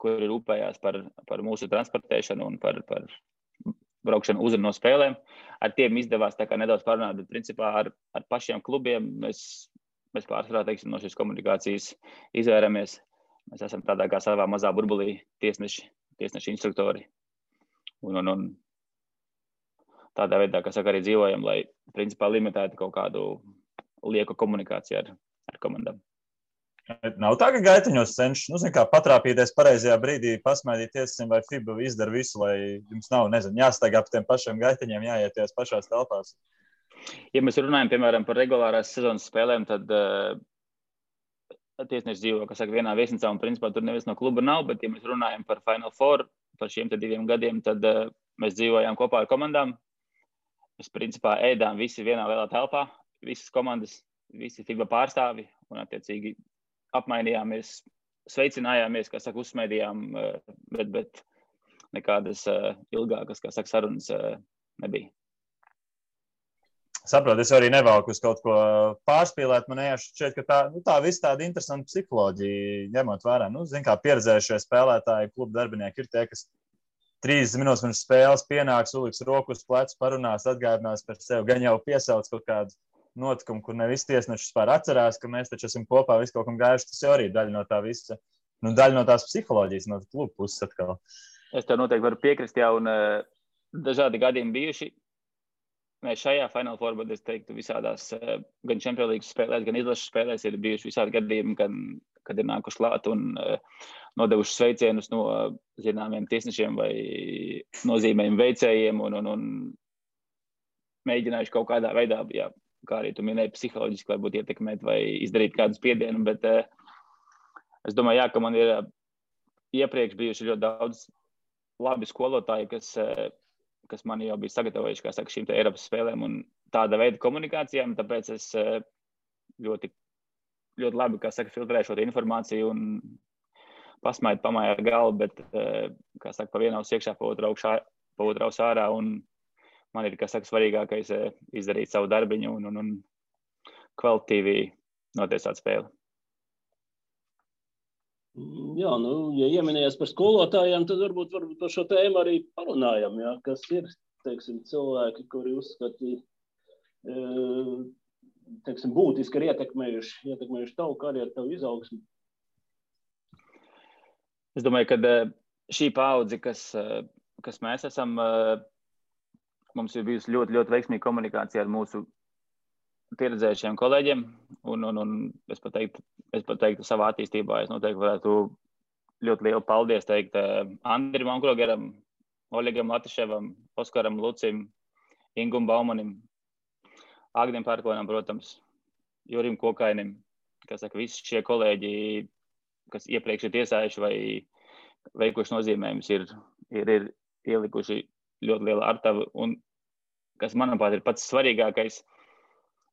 kuri rūpējās par mūsu transportēšanu un par braukšanu uz un no spēlēm. Ar tiem izdevās tā kā nedaudz parunāt, bet, principā, ar pašiem klubiem mēs pārsvarā, teiksim, no šīs komunikācijas izvairamies. Mēs esam tādā kā savā mazā burbulī tiesneši instruktori. Un tādā veidā, kā saka, arī dzīvojam, lai, principā, limitētu kaut kādu lieku komunikāciju ar komandām. Nav tā, ka gaiteņos cenšas, kā patrāpīties pareizajā brīdī, pasmaidīt tiesim, vai FIBA izdara visu, lai jums nav, jāstaigā pa tiem pašiem gaiteņiem, jāieties pašās telpās. Ja mēs runājam, piemēram, par regulārās sezonas spēlēm, tad tiesneši dzīvo, kā saka, vienā viesnīcā, un, principā, tur neviens no kluba nav, bet, ja mēs runājam par Final Four, par šiem 2 gadiem, tad mēs dzīvojām kopā ar komandām. Mēs, principā, ēdām visi vienā lielā telpā, visas komandas, visi FIBA pārstāvi, un, attiecīgi, apmainījāmies, sveicinājāmies, kā saka, uzsmaidījām, bet nekādas ilgākas, kā saka, sarunas nebija. Saprotu, es arī nevalku uz kaut ko pārspīlēt. Man šķiet, ka tā viss tāda interesanta psiholoģija, ņemot vērā. Kā pieredzējušie spēlētāji, klubu darbinieki ir tie, kas 30 minūtes pirms spēles pienāks, uliks roku uz plecu, parunās, atgādinās par sevi, gan jau piesauc kaut kādu notikumu, kur ne visi tiesneši vispār atcerās, ka mēs taču esam kopā visu kaut kam gājuši. Tas jau arī daļa no tā visa, daļa no tās psiholoģijas, no klubu puses atkal. Es tev noteikti varu piekrist, jā, un dažādi gadījumi bijuši. Mēs šajā Final Four, es teiktu, visādās gan Champions League spēlēs, gan izlases spēlēs ir bijuši visādi gadījumi, kad ir nākuši klāt un nodevuši sveicienus no zināmiem tiesnešiem vai nozīmējumu veicējiem un mēģinājuši kaut kādā veidā, jā, kā arī tu minēji, psiholoģiski varbūt ietekmēt vai izdarīt kādu spiedienu, bet es domāju, jā, ka man ir iepriekš bijuši ļoti daudz labi skolotāji, kas man jau bija sagatavojuši, kā saka, šīm te Eiropas spēlēm un tāda veida komunikācijām, tāpēc es ļoti labi, kā saka, filtrēju šo informāciju un pamāju ar galvu, bet, kā saka, pa vienu aus iekšā, pa otru aus ārā, un man ir, kā saka, svarīgākais izdarīt savu darbiņu un kvalitīvi notiesāt spēli. Jā, ja ieminējies par skolotājiem, tad varbūt par šo tēmu arī parunājam, jā, kas ir, teiksim, cilvēki, kuri uzskatīja, teiksim, būtiski ir ietekmējuši tavu karjeru, tavu izaugsmi. Es domāju, ka šī paudze, kas mēs esam, mums ir bijusi ļoti, ļoti veiksmīga komunikācija ar mūsu pieredzējušiem kolēģiem, un es pat teiktu savā attīstībā, es noteikti varētu ļoti lielu paldies teikt Andrim Onkrogeram, Oļegam Latiševam, Oskaram Lucim, Ingum Baumanim, Agnim Pērkonam, protams, Jurim Kokainim, kas saka, visi šie kolēģi, kas iepriekš ir tiesājuši vai veikuši nozīmējumus, ir ielikuši ļoti lielu artavu, un kas, manuprāt, ir pats svarīgākais,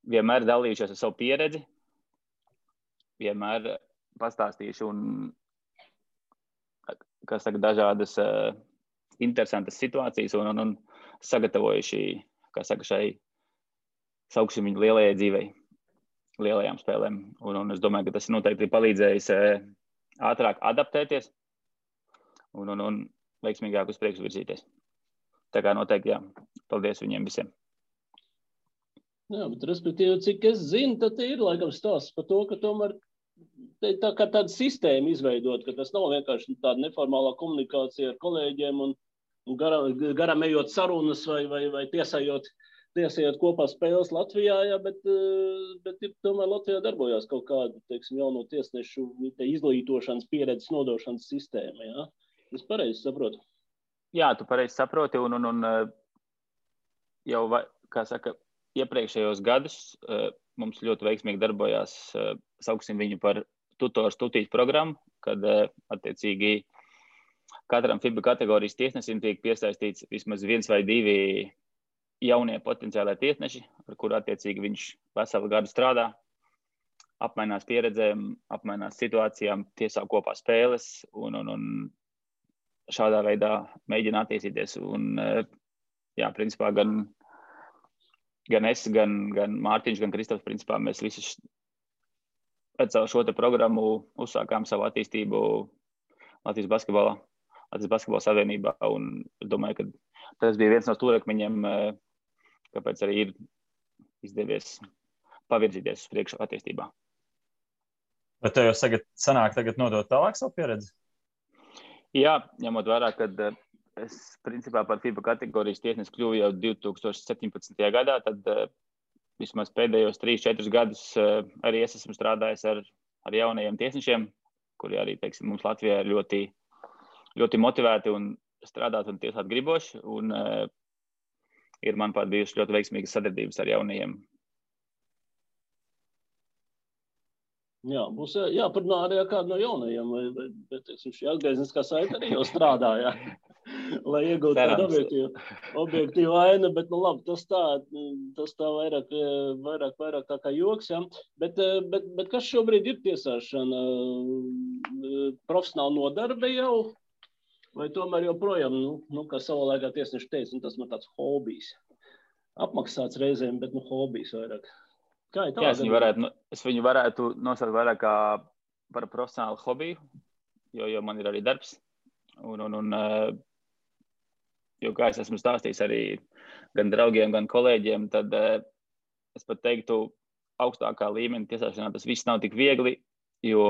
vienmēr dalījušies ar savu pieredzi, vienmēr pastāstījuši un, kā saka, dažādas interesantas situācijas un sagatavojuši, kā saka, šai sauksim viņu lielajai dzīvei, lielajām spēlēm. Un es domāju, ka tas noteikti ir palīdzējis ātrāk adaptēties un veiksmīgāk uz priekšu virzīties. Tā kā noteikti, jā, paldies viņiem visiem. Jā, bet respektīvi, cik es zinu, tad ir laikam stāsts par to, ka tomēr tā kā tāda sistēma izveidot, ka tas nav vienkārši tāda neformālā komunikācija ar kolēģiem un garam ejot sarunas vai tiesājot kopā spēles Latvijā, jā, bet tomēr Latvijā darbojās kaut kāda, teiksim, jauno tiesnešu izglītošanas pieredzes nodošanas sistēma, jā? Es pareizi saprotu? Jā, tu pareizi saproti un jau, kā saka, iepriekšējos gadus mums ļoti veiksmīgi darbojās, sauksim viņu par tutīšu programmu, kad attiecīgi katram FIBA kategorijas tiesnesim tiek piesaistīts vismaz 1 vai 2 jaunie potenciālai tiesneši, ar kuru attiecīgi viņš veselu gadu strādā, apmainās pieredzēm, apmainās situācijām, tiesā kopā spēles un šādā veidā mēģina attīstīties. Un, jā, principā gan es, gan Mārtiņš, gan Kristofs, principā mēs visi pēc šo te programmu uzsākām savu attīstību Latvijas basketbola savienībā, un es domāju, ka tas bija viens no stūrakmeņiem, kāpēc arī ir izdevies pavirzīties uz priekšu attīstībā. Bet tev jau sanāk tagad nodot tālāk savu pieredzi? Jā, ņemot vērā, kad es principā par FIBA kategorijas tiesnesi kļuvu jau 2017. gadā, tad vismaz pēdējos 3-4 gadus arī es esmu strādājis ar jaunajiem tiesnešiem, kuri arī, teiksim, mums Latvijā ir ļoti, ļoti motivēti un strādāt un tiesāt griboši, un ir, manuprāt, bijušas ļoti veiksmīgas sadarbības ar jaunajiem. Jā, būs jāparunā arī ar kādu no jaunajiem, bet, teiksim, šī atgriezniskā saite arī jau strādā, jā, lai iegūtu tādu objektīvu ainu, bet, nu labi, tas tā vairāk tā kā joks, jā. Bet kas šobrīd ir tiesāšana? Profesionāli nodarbe jau? Vai tomēr joprojām, kā savā laikā tiesneši teica, tas man tāds hobijs. Apmaksāts reizēm, bet, hobijs vairāk. Jā, es viņu varētu nosaukt vairāk kā par profesionālu hobiju, jo man ir arī darbs. Jo, kā es esmu stāstījis arī gan draugiem, gan kolēģiem, tad es pat teiktu, augstākā līmeņa tiesāšanā tas viss nav tik viegli, jo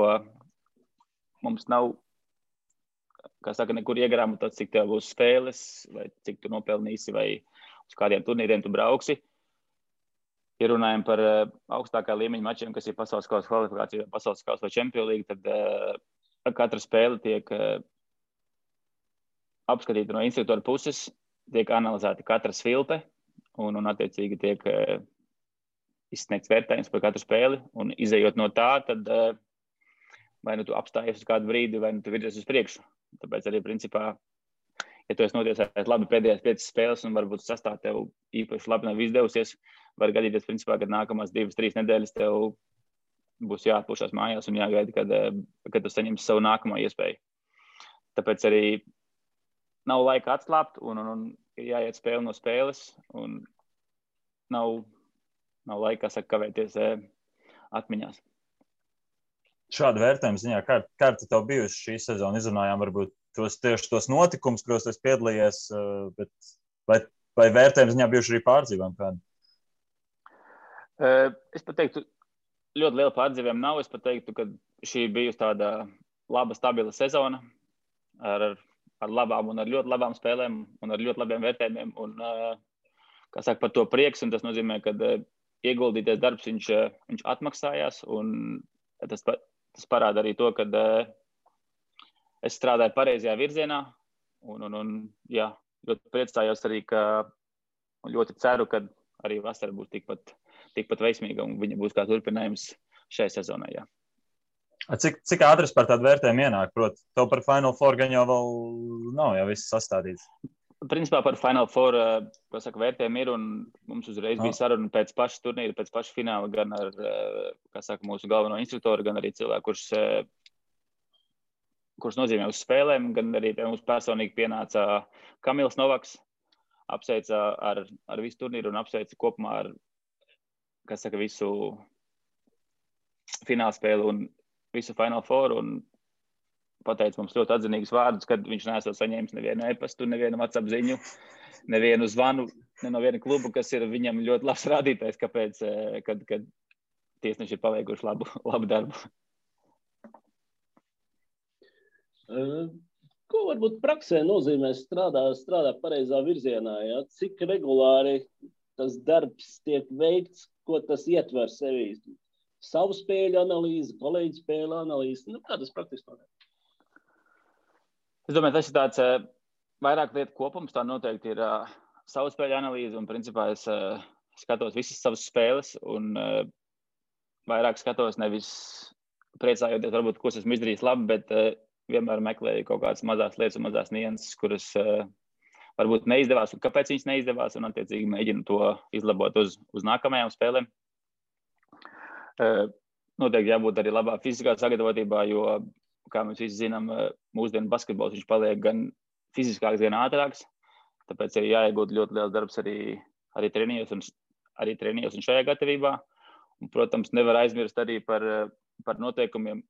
mums nav, kā saka, nekur iegrāmatot, cik tev būs spēles, vai cik tu nopelnīsi, vai uz kādiem turnīriem tu brauksi. ja runājam par augstākā līmeņa mačiem, kas ir pasaules kausa kvalifikācija, pasaules kausa vai Champions League, tad katra spēle tiek apskatīta no instruktora puses, tiek analizēta katra svilpe un attiecīgi tiek izsniegts vērtējums par katru spēli. Un izējot no tā, tad vai nu tu apstājies uz kādu brīdi, vai nu tu virzies uz priekšu. Tāpēc arī principā, ja tu esi notiesājis labi pēdējās 5 spēles un varbūt sastāv tev īpaši labi nav izdevusies, var gadīties, principā, kad nākamās 2-3 nedēļas tev būs jāatpūšās mājās un jāgaida, kad tu saņemsi savu nākamo iespēju. Tāpēc arī nav laika atslābt un ir jāiet spēle no spēles un nav laika, kavēties atmiņās. Šāda vērtējuma ziņā, kā tev bijusi šī sezona? Izrunājām varbūt tos notikumus, kuros tu piedalījies, bet vai vērtējuma ziņā bijuši arī pārdzīvojumi kādi? Es pat teiktu, ļoti liela pārdzīvojuma nav. Es pat teiktu, ka šī bijusi tāda laba, stabila sezona ar labām un ar ļoti labām spēlēm un ar ļoti labiem vērtējumiem. Un, kā saka, par to prieks, un tas nozīmē, ka ieguldīties darbs viņš atmaksājās, un tas parāda arī to, ka es strādāju pareizajā virzienā, un jā, ļoti priecājos arī, un ļoti ceru, ka arī vasara būs tikpat veiksmīga, un viņa būs kā turpinājums šai sezonai, jā. Cik ātri par tādu vērtējumu ienāk? Proti, tev par Final Four gan jau vēl nav, jau viss sastādīts. Principā par Final Four, ko saka, vērtējumi ir, un mums uzreiz bija saruna pēc paša turnīra, pēc paša fināla, gan ar, kā saka, mūsu galveno instruktoru, gan arī cilvēku, kurš nozīmē uz spēlēm, gan arī pie mums personīgi pienāca Kamils Novaks, apsveica ar visu turnīru un apsveica kopumā ar, kas saka, visu fināla spēli un visu Final Four, un pateica mums ļoti atzinīgus vārdus, kad viņš neesot saņēmis nevienu e-pastu, nevienu WhatsApp ziņu, nevienu zvanu, ne no viena kluba, kas ir viņam ļoti labs rādītājs, kāpēc, kad tiesneši ir paveikuši labu darbu. Ko varbūt praksē nozīmē strādāt pareizā virzienā? Ja? Cik regulāri tas darbs tiek veikts, ko tas ietver sevī? Savu spēļu analīzi, kolēģu spēļu analīzi. Kā tas praktiski notiek? Es domāju, tas ir tāds vairāk lietu kopums. Tā noteikti ir savu spēļu analīze, un principā es skatos visas savas spēles, un vairāk skatos nevis priecājoties, varbūt, ko esmu izdarījis labi, bet vienmēr meklēju kaut kādas mazās lietas un mazās nianses, kuras varbūt neizdevās, un kāpēc viņas neizdevās, un attiecīgi mēģinu to izlabot uz nākamajām spēlēm. Noteikti jābūt arī labā fiziskā sagatavotībā, jo, kā mēs visi zinām, mūsdienu basketbols viņš paliek gan fiziskāks, gan ātrāks, tāpēc arī jāiegūt ļoti liels darbs arī trenījos un šajā gatavībā. Un, protams, nevar aizmirst arī par noteikumiem,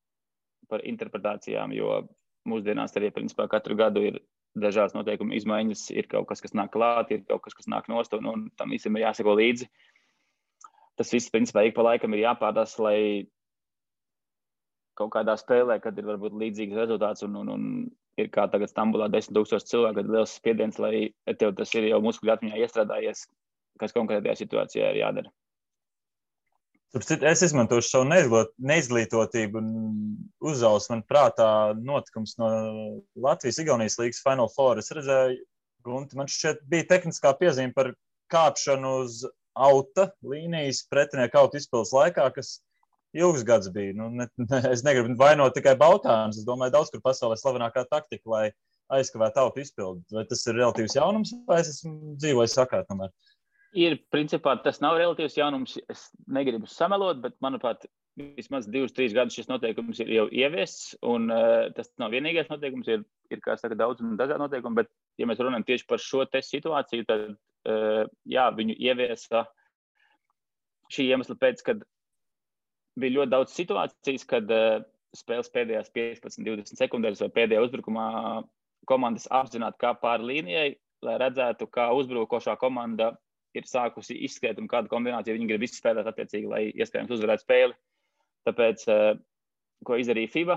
par interpretācijām, jo mūsdienās arī, principā, katru gadu ir dažādas noteikuma izmaiņas, ir kaut kas nāk klāt, ir kaut kas nāk nost, un tam visam ir jāseko līdzi. Tas viss, principā, ik pa laikam ir jāpārdās, lai kaut kādā spēlē, kad ir varbūt līdzīgs rezultāts, un ir kā tagad Stambulā 10,000 cilvēku, kad liels spiediens, lai tev tas ir jau muskuļu atmiņā iestrādājies, kas konkrētajā situācijā ir jādara. Es izmantošu savu neizglītotību un uzausu man prātā notikums no Latvijas-Igaunijas līgas Final Four. Es redzēju, Gunti, man šķiet bija tehniskā piezīme par kāpšanu uz auta līnijas pretinieku auta izpildes laikā, kas ilgs gads bija. Es negribu vainot tikai Baltānus. Es domāju, daudz kur pasaulē slavenākā taktika, lai aizkavētu auta izpildi. Vai tas ir relatīvs jaunums, vai es esmu dzīvojis sakāt tomēr? Ir, principā, tas nav relatīvs jaunums. Es negribu samelot, bet, manuprāt, vismaz 2-3 gadus šis noteikums ir jau ieviests, un tas nav vienīgais noteikums, ir kā saka, daudz un dažādi noteikumi, bet, ja mēs runājam tieši par šo te situāciju, tad, jā, viņu ieviesa šī iemesla pēc, kad bija ļoti daudz situācijas, kad spēles pēdējās 15-20 sekundēs vai pēdējā uzbrukumā komandas apzināti kā pāri līnijai, lai redzētu, kā uzbrukošā komanda ir sākusi izskriet un kādu kombināciju viņi grib izspēlēt attiecīgi, lai iespējams uzvarētu spēli. Tāpēc, ko izdarīja FIBA,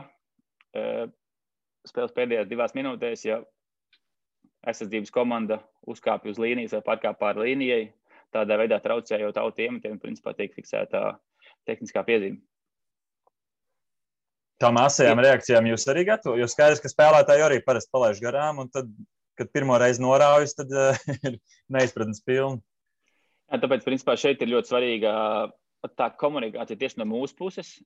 spēles pēdējās 2 minūtēs, ja aizsardzības komanda uzkāpja uz līnijas vai pārkāp pāri līnijai, tādā veidā traucējot autu iemetiem, principā tiek fiksēta tehniskā piezīme. Tām asajām reakcijām jūs arī gatavo? Jo skaidrs, ka spēlētāji arī parasti palaiž garām, un tad, kad pirmo reizi noraujas, tad ir neizpratnes pilni. Jā, tāpēc, principā, šeit ir ļoti svarīga tā komunikācija tieši no mūsu puses.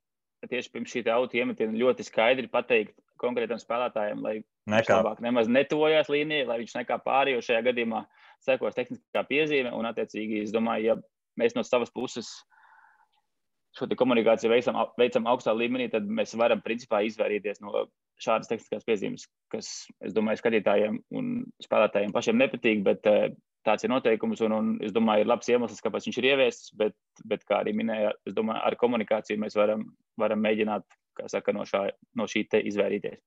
Tieši pirms šī auto iemetiena ļoti skaidri pateikt konkrētam spēlētājiem, lai viņš labāk nemaz netuvojās līnijai, lai viņš nekā pāri, jo šajā gadījumā sekos tehniskā piezīme. Un, attiecīgi, es domāju, ja mēs no savas puses šo komunikāciju veicam augstā līmenī, tad mēs varam principā izvairīties no šādas tehniskās piezīmes, kas, es domāju, skatītājiem un spēlētājiem pašiem nepatīk, bet tāds ir noteikums, un es domāju, ir labs iemesls, kāpēc viņš ir ieviests, bet kā arī minēja, es domāju, ar komunikāciju mēs varam mēģināt, kā saka, no šī te izvairīties.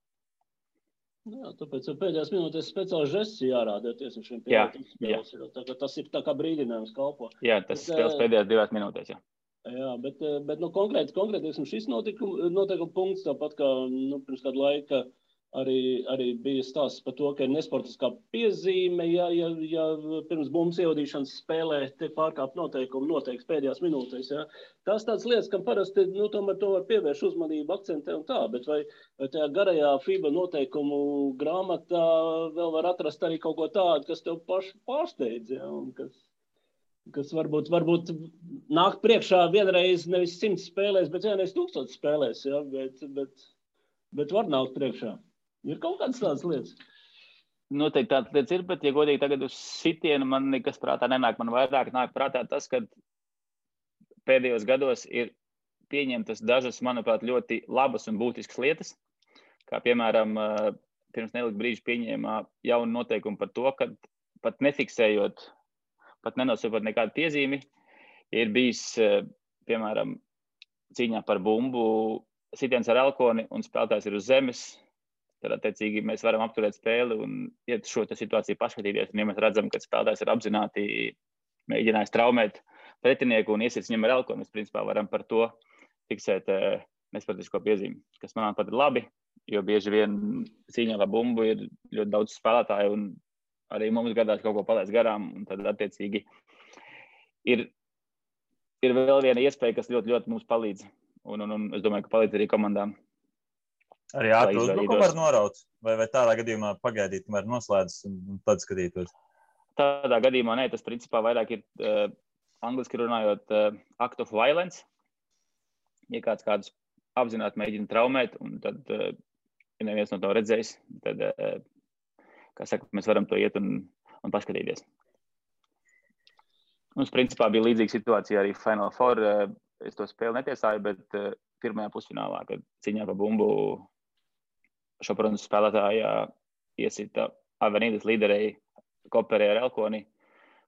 Jā, tāpēc pēdējās minūtēs speciāls žests jārāda tieši šiem spēles. Tas ir tā kā brīdinājums kalpo. Jā, tas spēles pēdējās 2 minūtēs, jā. Jā, bet konkrēti šis noteikuma punkts, tāpat kā pirms kādu laiku arī bija stāsts par to, ka ir nesportiskā piezīme, ja pirms bumbas ievadīšanas spēlē tiek pārkāpt noteikumi noteikts pēdējās minūtēs. Ja. Tās tādas lietas, kam parasti tomēr to var pievērš uzmanību, akcentē un tā, bet vai tajā garajā FIBA noteikumu grāmatā vēl var atrast arī kaut ko tādu, kas tev pašu pārsteidz, ja, un kas varbūt nāk priekšā vienreiz nevis 100 spēlēs, bet vienreiz 1000 spēlēs, ja, bet var nākt priekšā. Ir kaut kādas tādas lietas? Noteikti tādas lietas ir, bet, ja godīgi tagad uz sitienu man nekas prātā nenāk. Man vairāk nāk prātā tas, ka pēdējos gados ir pieņemtas dažas, manuprāt, ļoti labas un būtiskas lietas. Kā, piemēram, pirms nelika brīža pieņēma jaunu noteikumu par to, ka pat nefiksējot, pat nenosūpot nekādu piezīmi, ir bijis, piemēram, cīņā par bumbu sitiens ar elkoni un spēlētājs ir uz zemes. Tad, attiecīgi, mēs varam apturēt spēli un iet šo situāciju paskatīties. Un, ja mēs redzam, ka spēlētājs ir apzināti mēģinājis traumēt pretinieku un iesiet viņam ar elkoni, mēs principā varam par to fiksēt nesportisko piezīmi, kas, manuprāt, ir labi, jo bieži vien cīņā par bumbu ir ļoti daudz spēlētāju un arī mums gadās kaut ko palaist garām. Un tad, attiecīgi, ir vēl viena iespēja, kas ļoti, ļoti mums palīdz. Un es domāju, ka palīdz arī komandām. Arī ātri uzbrukumu var noraut? Vai tādā gadījumā pagaidīt, kamēr noslēdzas un tad skatītos? Tādā gadījumā nē, tas principā vairāk ir angliski runājot act of violence. Ja kādus apzināti mēģina traumēt, un tad, ja neviens no to redzējis, tad, kā saka, mēs varam to iet un paskatīties. Mums principā bija līdzīga situācija arī Final Four. Es to spēli netiesāju, bet pirmajā pusfinālā, kad cīņā par bumbu Šoprons spēlētājā iesita Avenīdas līderei Koperē ar elkoni,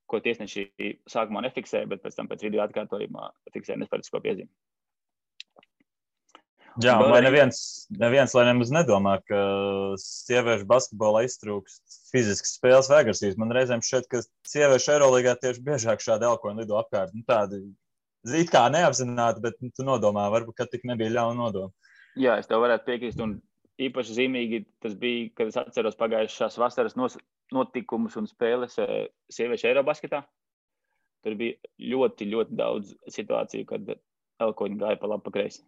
ko tiesneši sākumā nefiksēja, bet pēc tam pēc video atkārtojumā fiksēja nesportisko piezīmi. Jā, lai neviens lai nemaz nedomā, ka sieviešu basketbolā iztrūkst fiziskas spēles vai agresijas. Man reizēm šķiet, ka sieviešu Eirolīgā tieši biežāk šādi elkoni lido apkārt. Tādi it kā neapzināti, bet tu nodomā, varbūt, ka tik nebija ļauna nodoma. Jā, es tev varētu piekrist, un īpaši zīmīgi tas bija, kad es atceros pagājušās vasaras notikumus un spēles sieviešu Eirobasketā. Tur bija ļoti, ļoti daudz situāciju, kad elkoņi gāja pa labi pa kreisi.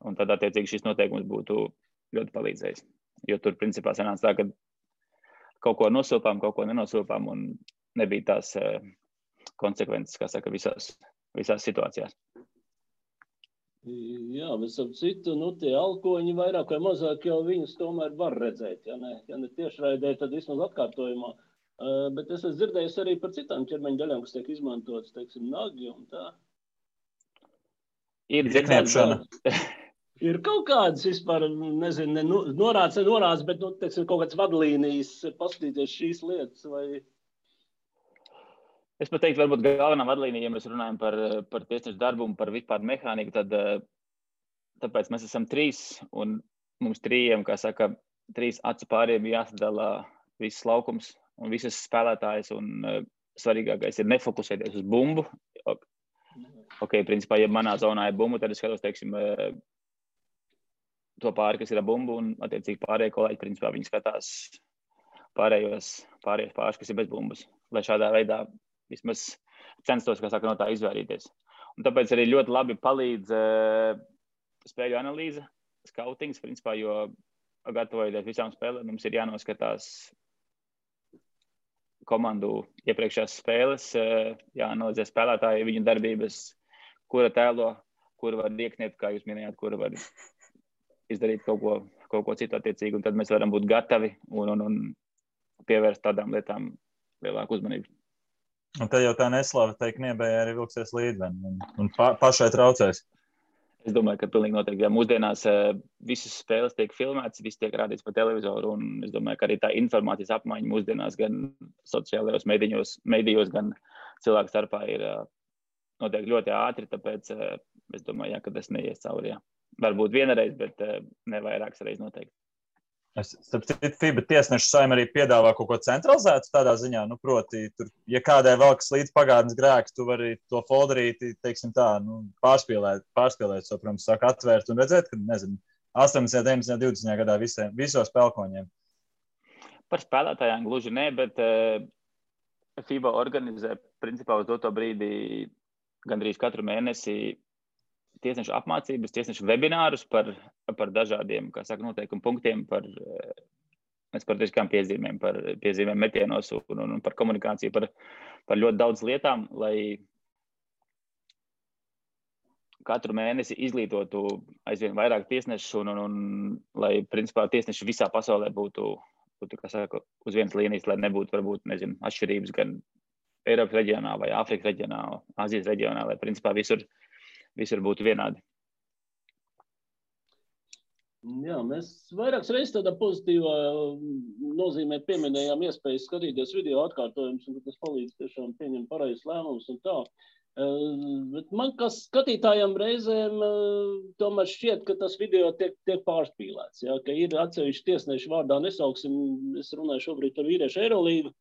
Un tad, attiecīgi, šis noteikums būtu ļoti palīdzējis. Jo tur, principā, sanāca tā, ka kaut ko nosūpām, kaut ko nenosūpām, un nebija tās konsekvences, kā saka, visās situācijās. Jā, bet ap citu, tie elkoņi vairāk vai mazāk jau viņus tomēr var redzēt. Ja ne tiešraidē, tad vismaz atkārtojumā. Bet es esmu dzirdējis arī par citām ķermeņa daļām, kas tiek izmantotas, teiksim, nagi un tā. Ir dziekniepšana. Ir kaut kādas vispār, nezinu, norāds, bet, teiksim, kaut kāds vadlīnijas paskatīties šīs lietas vai... Es pat teiktu, varbūt galvenā vadlīnija, ja mēs runājam par tiesnešu darbu un par vispār mehāniku, tad tāpēc mēs esam 3 un mums 3, kā saka, 3 acu pāriem jāsadala viss laukums un visas spēlētājas un svarīgākais ir nefokusēties uz bumbu. Ok, principā, ja manā zonā ir bumbu, tad es skatos, teiksim, to pāri, kas ir ar bumbu un attiecīgi pārējie kolēģi, principā, viņi skatās pārējos pāris, kas ir bez bumbas, lai šādā veidā vismaz censtos, kā saka, no tā izvairīties. Un tāpēc arī ļoti labi palīdz spēļu analīze, skautings, principā, jo gatavojoties visām spēlēm, mums ir jānoskatās komandu iepriekšējās spēles, jāanalizē spēlētāji, viņu darbības, kura tēlo, kura var iekniet, kā jūs minējāt, kura var izdarīt kaut ko citu attiecīgi, un tad mēs varam būt gatavi un pievērst tādām lietām lielāku uzmanību. Un te jau tā neslava teikt niebējā arī vilksies līdzi un pašai traucēs. Es domāju, ka pilnīgi noteikti, ja mūsdienās visas spēles tiek filmētas, viss tiek rādīts pa televizoru, un es domāju, ka arī tā informācijas apmaiņa mūsdienās gan sociālajos medijos, gan cilvēku starpā ir noteikti ļoti ātri, tāpēc es domāju, ka tas neies cauri, jā. Varbūt vienreiz, bet ne vairākas reizes noteikti. Starp citu, FIBA tiesnešu saima arī piedāvā kaut ko centralizētu tādā ziņā, proti, tur, ja kādai velkas līdz pagātnes grēks, tu vari to folderīti, teiksim tā, pārspīlēt, so, protams, saka atvērt un redzēt, ka, 18, 19, 20 gadā visos spēlkoņiem. Par spēlētājiem gluži ne, bet FIBA organizē, principā, uz doto brīdi gandrīz katru mēnesi tiesnešu apmācības, tiesnešu webinārus par dažādiem, kā saka, noteikumu punktiem, par sportiskām piezīmēm, par piezīmēm metienos un par komunikāciju, par ļoti daudz lietām, lai katru mēnesi izglītotu aizvien vairāk tiesnešu un lai, principā, tiesneši visā pasaulē būtu, kā saka, uz vienas līnijas, lai nebūtu, varbūt, atšķirības gan Eiropas reģionā vai Āfrikas reģionā, Azijas reģionā, lai, principā, visur būtu vienādi. Jā, mēs vairākas reizes tādā pozitīvā nozīmē pieminējām iespēju skatīties video atkārtojumus, un tas palīdz tiešām pieņemt pareizes lēmumus un tā. Bet man, kā skatītājiem reizēm, tomēr šķiet, ka tas video tiek pārspīlēts. Ja? Ka ir atsevišķi tiesneši vārdā nesauksim, es runāju šobrīd par vīriešu Eirolīgu,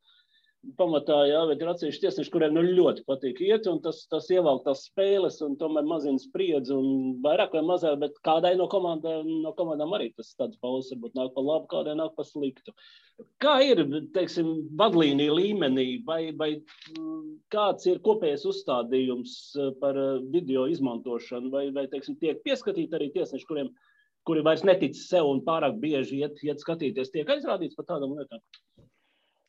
pamatā, jā, bet ir atsevišķi tiesneši, kuriem ļoti patīk iet, un tas ievelk tās spēles, un tomēr mazina spriedzi, un vairāk vai mazāk, bet kādai no komandām arī tas tāds pauses varbūt nāk pa labu, kādai nāk pa sliktu. Kā ir, teiksim, vadlīnija līmenī, vai kāds ir kopējais uzstādījums par video izmantošanu, vai teiksim, tiek pieskatīti arī tiesneši, kuri vairs netic sev un pārāk bieži iet skatīties, tiek aizrādīts par tādām lietām?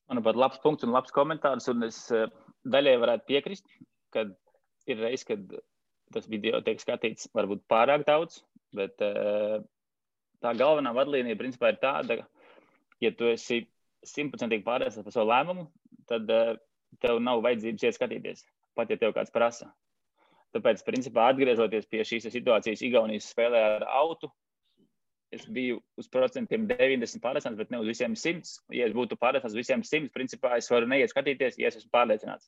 Manuprāt, labs punkts un labs komentārs, un es daļai varētu piekrist, kad ir reiz, kad tas video tiek skatīts varbūt pārāk daudz, bet tā galvenā vadlīnija principā ir tāda, ja tu esi 100% pārliecināts par savu lēmumu, tad tev nav vajadzības iet skatīties, pat ja tev kāds prasa. Tāpēc, principā, atgriežoties pie šīs situācijas Igaunijas spēlē ar autu, es biju uz procentiem 90 pārliecināts, bet ne uz visiem 100. Ja es būtu pārliecināts uz visiem 100, principā es varu neiet skatīties, ja es esmu pārliecināts.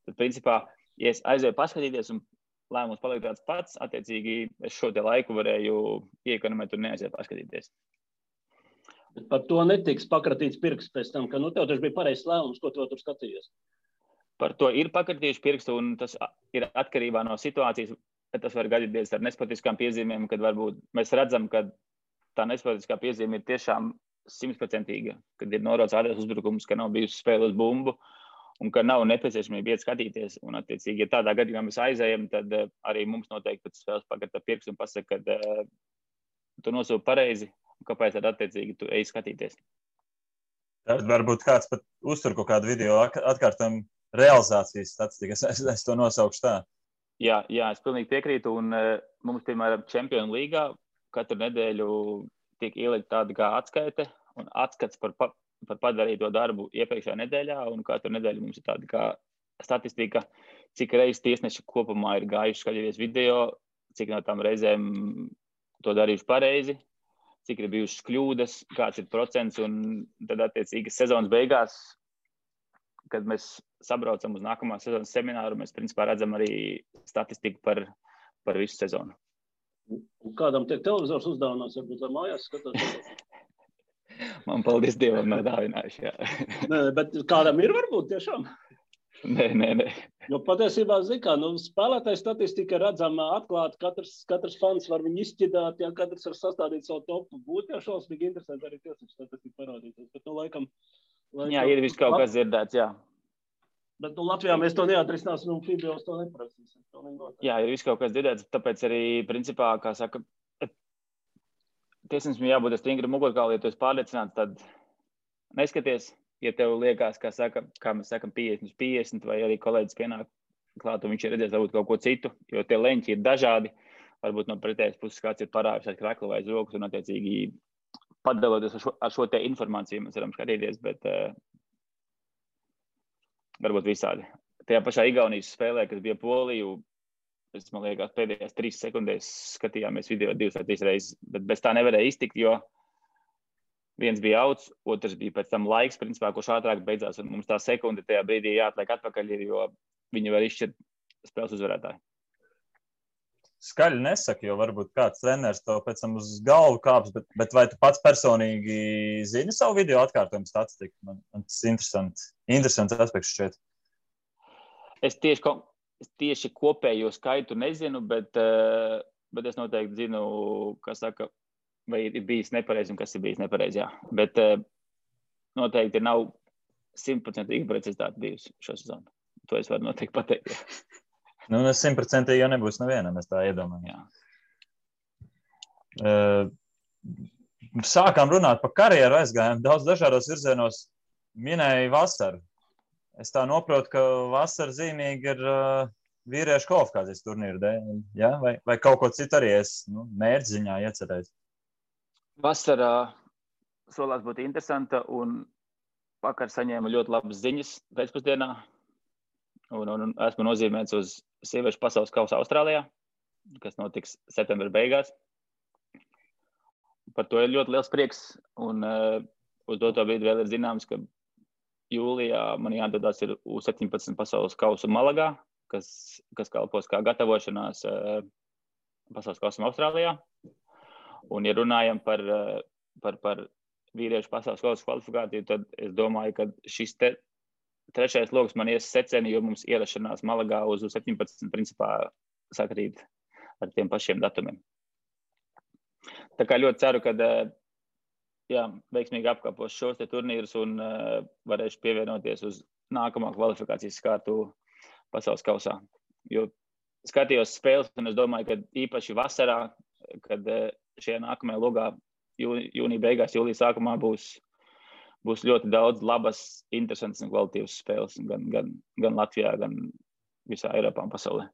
Tad, principā, ja es aizēju paskatīties un lēmums paliek tāds pats, attiecīgi es šo te laiku varēju iekonomēt un neaiziet paskatīties. Bet par to netiks pakratīts pirksts pēc tam, ka tev taču bija pareizs lēmums, ko tu tur skatījies. Par to ir pakratījuši pirkstu, un tas ir atkarībā no situācijas. Tas var gadīties ar nesportiskām piezīmēm, kad varbūt mēs redzam, ka tā nesportiskā piezīme ir tiešām 100%, kad ir norots ārējais uzbrukums, ka nav bijusi spēle uz bumbu un ka nav nepieciešamība iet skatīties. Un, attiecīgi, ja tādā gadījumā mēs aizējam, tad arī mums noteikti pēc spēles pakarta pirksts un pasaka, ka tu nosūti pareizi, un kāpēc tad attiecīgi tu ej skatīties. Tad varbūt kāds pat uztur kaut kādu video atkārtojumu realizācijas statistiku. Es to nosaukšu tā. Jā, es pilnīgi piekrītu, un mums, piemēram, Čempionu līgā katru nedēļu tiek ielikt tāda kā atskaite un atskats par padarīto darbu iepriekšējā nedēļā, un katru nedēļu mums ir tāda kā statistika, cik reizes tiesneši kopumā ir gājuši skatīties video, cik no tām reizēm to darījuši pareizi, cik ir bijušas kļūdas, kāds ir procents, un tad attiecīgi sezonas beigās, kad mēs sabraucam uz nākamā sezonas semināru, mēs principā redzam arī statistiku par visu sezonu. Un kādam tiek televizors uzdāvinās, varbūt, lai mājās skatās? Man paldies Dievam nav dāvinājuši, jā. Nē, bet kādam ir varbūt tiešām? Nē. Jo patiesībā, kā, spēlētāju statistika redzama atklāti, katrs fans var viņu izšķidāt, ja katrs var sastādīt savu topu. Būtu jau šausmīgi interesanti arī tiesnešu statistika parādīties, bet laikam... Jā, ir viss kaut kas dzirdēts, jā. Bet Latvijā mēs to neatrisināsim un FIBA to neprasīsim. Jā, ir viss kaut kas dzirdēts, tāpēc arī, principā, kā saka, tiesnesim jābūt stingri mugurkauli, ja tu esi pārliecināts, tad neskaties, ja tev liekas, kā mēs sakam, 50/50, vai arī kolēģis pienāk klāt, un viņš ir redzējis varbūt kaut ko citu, jo tie leņķi ir dažādi, varbūt no pretējas puses kāds ir parāvis ar kreklu vai zokus, un attiecīgi padaloties ar šo te informāciju, mēs varam skatīties, bet varbūt visādi. Tajā pašā Igaunijas spēlē, kas bija Poliju, man liekas, pēdējās 3 sekundēs skatījāmies video 2 vai 3 reizes, bet bez tā nevarēja iztikt, jo viens bija outs, otrs bija pēc tam laiks, principā, kurš ātrāk beidzās, un mums tā sekunde tajā brīdī jāatliek atpakaļ, jo viņi var izšķirt spēles uzvarētāju. Skaļi nesaka, jo varbūt kāds treneris to pēc tam uz galvu kāps, bet vai tu pats personīgi zini savu video atkārtojumu statistiku? Man tas interesants aspekts šķiet. Es tieši kopējo skaitu nezinu, bet es noteikti zinu, kas saka, vai ir bijis nepareizi un kas ir bijis nepareizi, jā. Bet noteikti nav 100% precizitāte bijusi šo sezonu. To es varu noteikti pateikt, jā. Nu, 100% jau nebūs nevienam, es tā iedomājos. Sākām runāt par karjeru, aizgājām daudz dažādos virzienos, minēja vasaru. Es tā noprotu, ka vasara zīmīgi ir vīriešu kvalifikācijas turnīru dēļ, ja? Vai kaut ko citu arī es mērķziņā iecerēju? Vasara solās būt interesanta, un vakar saņēmu ļoti labas ziņas pēcpusdienā. Un esmu nozīmēts uz sieviešu pasaules kausa Austrālijā, kas notiks septembra beigās. Par to ir ļoti liels prieks, un uz doto brīdi vēl ir zināms, ka jūlijā man jādodas ir U17 pasaules kausu Malagā, kas kalpos kā gatavošanās pasaules kausam Austrālijā. Un, ja runājam par vīriešu pasaules kausa kvalifikāciju, tad es domāju, ka šis trešais loks man ies seceni, jo mums ierašanās Malagā uz 17 principā sakrīt ar tiem pašiem datumiem. Tā kā ļoti ceru, ka veiksmīgi apkāpos šos te turnīrus un varēšu pievienoties uz nākamā kvalifikācijas kārtu pasaules kausā. Jo skatījos spēles, un es domāju, ka īpaši vasarā, kad šajā nākamajā logā jūnija beigās, jūlija sākumā būs ļoti daudz labas, interesantas un kvalitīvas spēles gan Latvijā, gan visā Eiropā un pasaulē.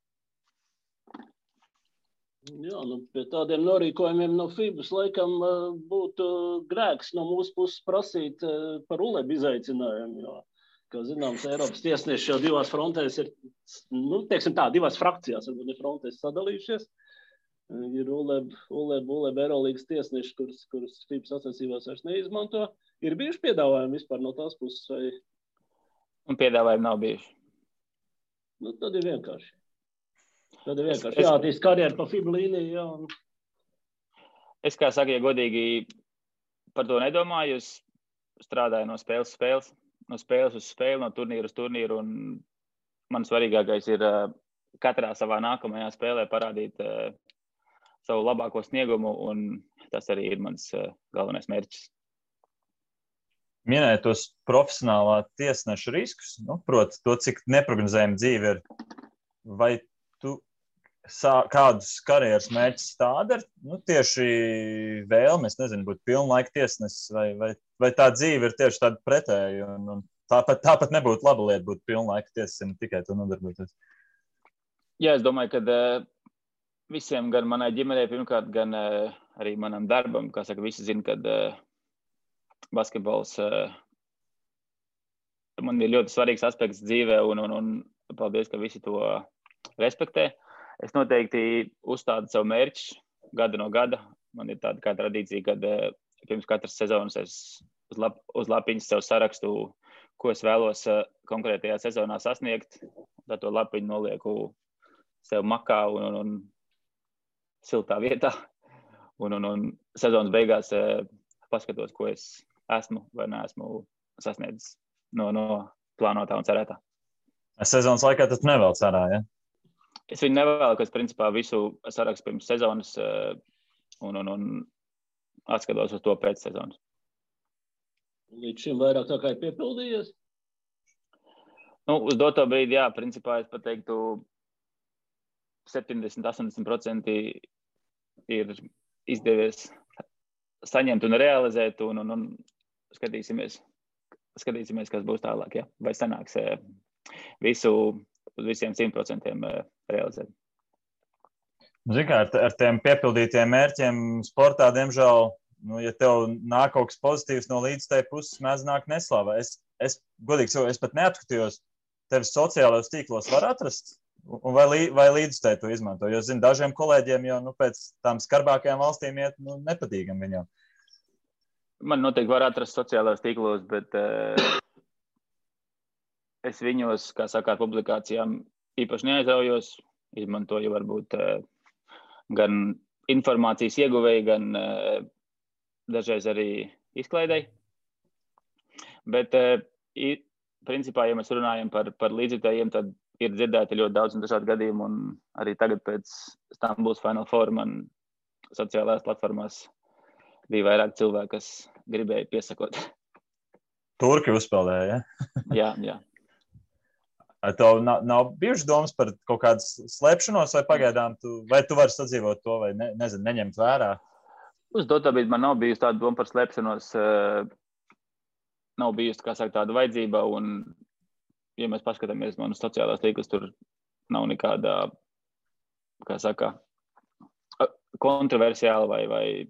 Jā, pie tādiem norīkojumiem no FIBAS laikam būtu grēks no mūsu puses prasīt par ULEB izaicinājumu, jo, kā zināms, Eiropas tiesneši jau divās frontēs ir, divās frakcijās, varbūt ne frontēs sadalījušies. Ir ULEB Eirolīgas tiesneši, kurus FIBAS sacensībās vairs neizmanto. Ir bijuši piedāvājumi vispār no tās puses? Vai... Un piedāvājumi nav bijuši. Tad ir vienkārši. Jātīst karjeru pa FIBA līniju. Jā. Es, kā saka, ja godīgi par to nedomāju, es strādāju no spēles uz spēli, no turnīru uz turnīru, un man svarīgākais ir katrā savā nākamajā spēlē parādīt savu labāko sniegumu, un tas arī ir mans galvenais mērķis. Minēja tos profesionālā tiesneša riskus, proti to, cik neprognozējama dzīve ir. Vai tu kādus karjeras mērķus tāda ir? Tieši vēlme, es nezinu, būt pilnlaika tiesnesis, vai tā dzīve ir tieši tāda pretēja, un tāpat nebūtu laba lieta būt pilnlaika tiesnesim, tikai to nodarboties. Jā, es domāju, ka visiem, gan manai ģimenei pirmkārt, gan arī manam darbam, kā saka, visi zina, kad basketbols man ir ļoti svarīgs aspekts dzīvē, un paldies, ka visi to respektē. Es noteikti uzstādu savu mērķi gada no gada. Man ir tāda kā tradīcija, kad pirms katras sezonas es uz lapiņas sev sarakstu, ko es vēlos konkrētajā sezonā sasniegt. Tad to lapiņu nolieku sev makā un siltā vietā. Un sezonas beigās paskatos, ko es esmu vai neesmu sasniedzis no plānotā un cerētā. Sezonas laikā tas nevēl cerā, ja? Es viņu nevēlu, ka es principā visu sarakstu pirms sezonas un atskatos uz to pēc sezonas. Līdz šim vairāk tā kā ir piepildījies? Uz doto brīdi, jā, principā es pateiktu 70–80% ir izdevies saņemt un realizēt, un skatīsimies, kas būs tālāk, jā. Vai sanāks visu uz visiem 100% realizēt. Zini kā, ar tiem piepildītiem mērķiem sportā, diemžēl, ja tev nāk kaut kas pozitīvs no līdzstēja puses, mēdz nāk neslava. Es godīgi sakot, es pat neatkatījos, tevis sociālajos tīklos var atrast, un vai līdzstēja to izmanto. Jo, zinu, dažiem kolēģiem jau pēc tām skarbākajām valstīm iet nepatīkam viņam. Man noteikti var atrast sociālajos tīklos, bet es viņos, kā saka, ar publikācijām īpaši neaizraujos, izmantoju varbūt gan informācijas ieguvēji, gan dažreiz arī izklaidēji. Bet, principā, ja mēs runājam par līdzjutējiem, tad ir dzirdēti ļoti daudz un dažādi gadījumi, un arī tagad pēc Stambuls Final Four man sociālajās platformās bija vairāk cilvēki, kas gribēja piesakot. Turki uzspēlēja, ja? Jā. Tev nav bijušas domas par kaut kādas slēpšanos, vai pagaidām vai tu vari sadzīvot to, vai neņemt vērā? Uz doto brīdi man nav bijusi tāda doma par slēpšanos, nav bijusi, kā saka, tāda vajadzība, un, ja mēs paskatāmies manas sociālās tīklas, tur nav nekāda, kā saka, kontroversiāla vai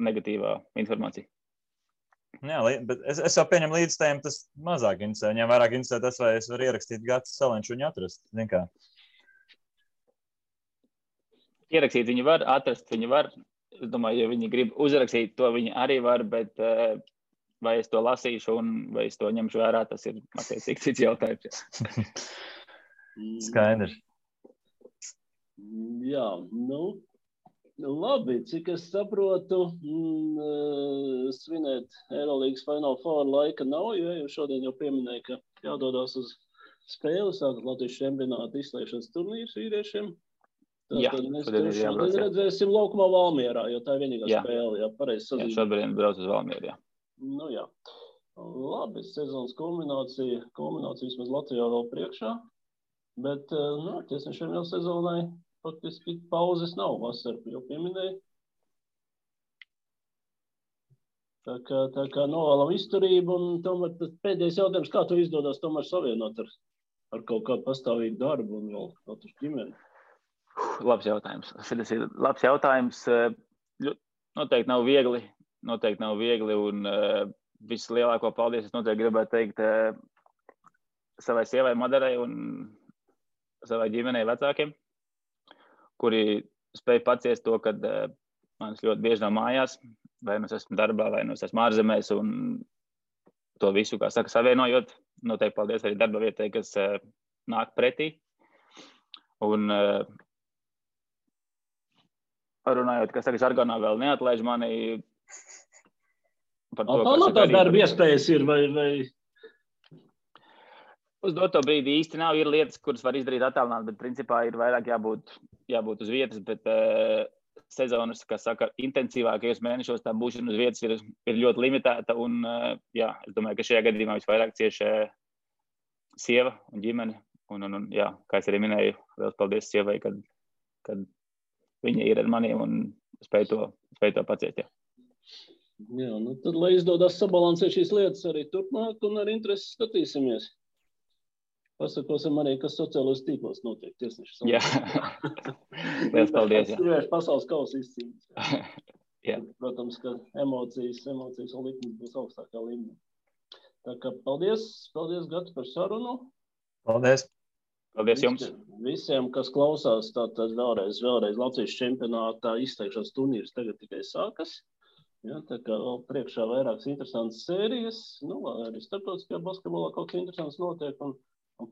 negatīvā informācija. Jā, bet es jau pieņemu līdzstējiem, tas mazāk interesē. Viņam vairāk interesē tas, vai es varu ierakstīt Gatis Salenču viņu atrast. Zin kā? Ierakstīt viņi var, atrast viņi var. Es domāju, ja viņi grib uzrakstīt, to viņi arī var, bet vai es to lasīšu un vai es to ņemšu vērā, tas ir attiecīgi cits jautājums. Skaidrs. Jā, labi, cik es saprotu, svinēt Eirolīgas Final Four laika nav, jo šodien jau pieminēja, ka jādodās uz spēli, sākat Latvijas čempionāta izslēgšanas turnīrs vīriešiem. Tad mēs šodien redzēsim laukumā Valmierā, jo tā ir vienīgā spēle, jā, pareizi sazīmēt. Jā, šobrīd brauc uz Valmieru, jā. Jā. Labi, sezonas kulminācija vismaz Latvijā vēl priekšā, bet, tiesnešiem jau sezonai faktiski pauzes nav, vasaru jau pieminēja. Tā kā novēlam izturību, un tomēr pēdējais jautājums, kā tu izdodas tomēr savienot ar kaut kādu pastāvīgu darbu un vēl katru ģimeni? Labs jautājums. Šis ir labs jautājums. Noteikti nav viegli, un vislielāko paldies es noteikti gribētu teikt savai sievai Madarai un savai ģimenei vecākiem, kuri spēj paciest to, kad manis ļoti bieži nav mājās, vai nu es esmu darbā, vai nu es esmu ārzemēs, un to visu, kā saka, savienojot. Noteikti paldies arī darba vietai, kas nāk pretī. Un runājot, kā saka, žargonā vēl neatlaiž mani par to, kas tā darba iespējas ir, vai... Uz doto brīdi īsti nav, ir lietas, kuras var izdarīt attālināt, bet principā ir vairāk jābūt uz vietas, bet sezonas, kā saka, intensīvākajos mēnešos tā būšana uz vietas ir ļoti limitēta, un es domāju, ka šajā gadījumā visvairāk cieši sieva un ģimene, un kā es arī minēju, vēl paldies sievai, kad viņa ir ar maniem un spēj to paciest, jā. Jā, tad, lai izdodas sabalansēt šīs lietas arī turpmāk, un ar interesi skatīsimies. Pasakosim arī, kas sociālos tīklos notiek tiesneši. Jā, liels paldies. Sieviešu pasaules kausa izcīņas. Jā. Protams, ka emocijas un likmes būs augstākā līmenī. Tā kā paldies Gati par sarunu. Paldies. Paldies jums. Visiem, kas klausās, tātad vēlreiz Latvijas čempionātā izteikšanas turnīrs tagad tikai sākas. Jā, tā kā vēl priekšā vairākas interesantas sērijas, arī starptautiskajā basketbolā kaut kas interesants notiek, un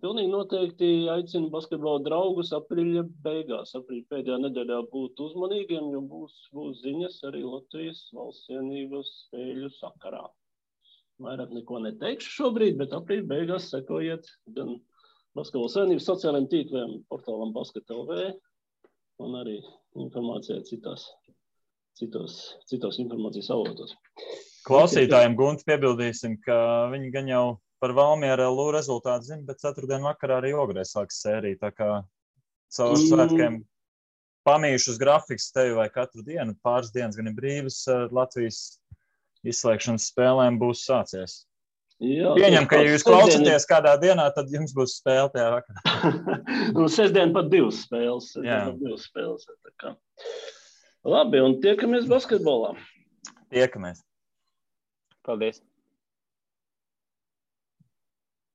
pilnīgi noteikti aicinu basketbola draugus aprīļa beigās, aprīļa pēdējā nedēļā būt uzmanīgiem, jo būs ziņas arī Latvijas valsts vienības spēļu sakarā. Vairāk neko neteikšu šobrīd, bet aprīļa beigās sekojiet gan basketbola savienības sociālajiem tīkliem, portālam Basket.lv un arī informācijā citos informācijas avotos. Klausītājiem Gunti piebildīsim, ka viņi gan jau par Valmiera LU rezultātu zinu, bet ceturtdien vakarā arī Ogrē sāks sērija. Tā kā caur svētkiem pamīšus grafiks tevi vai katru dienu, pāris dienas gan ir brīvas, Latvijas izslēgšanas spēlēm būs sācies. Jā, Pieņem, ka ja jūs klausaties kādā dienā, tad jums būs spēle tajā vakarā. Un sestdien pat divas spēles. Tā kā. Labi, un tiekamies basketbolā. Tiekamies. Paldies.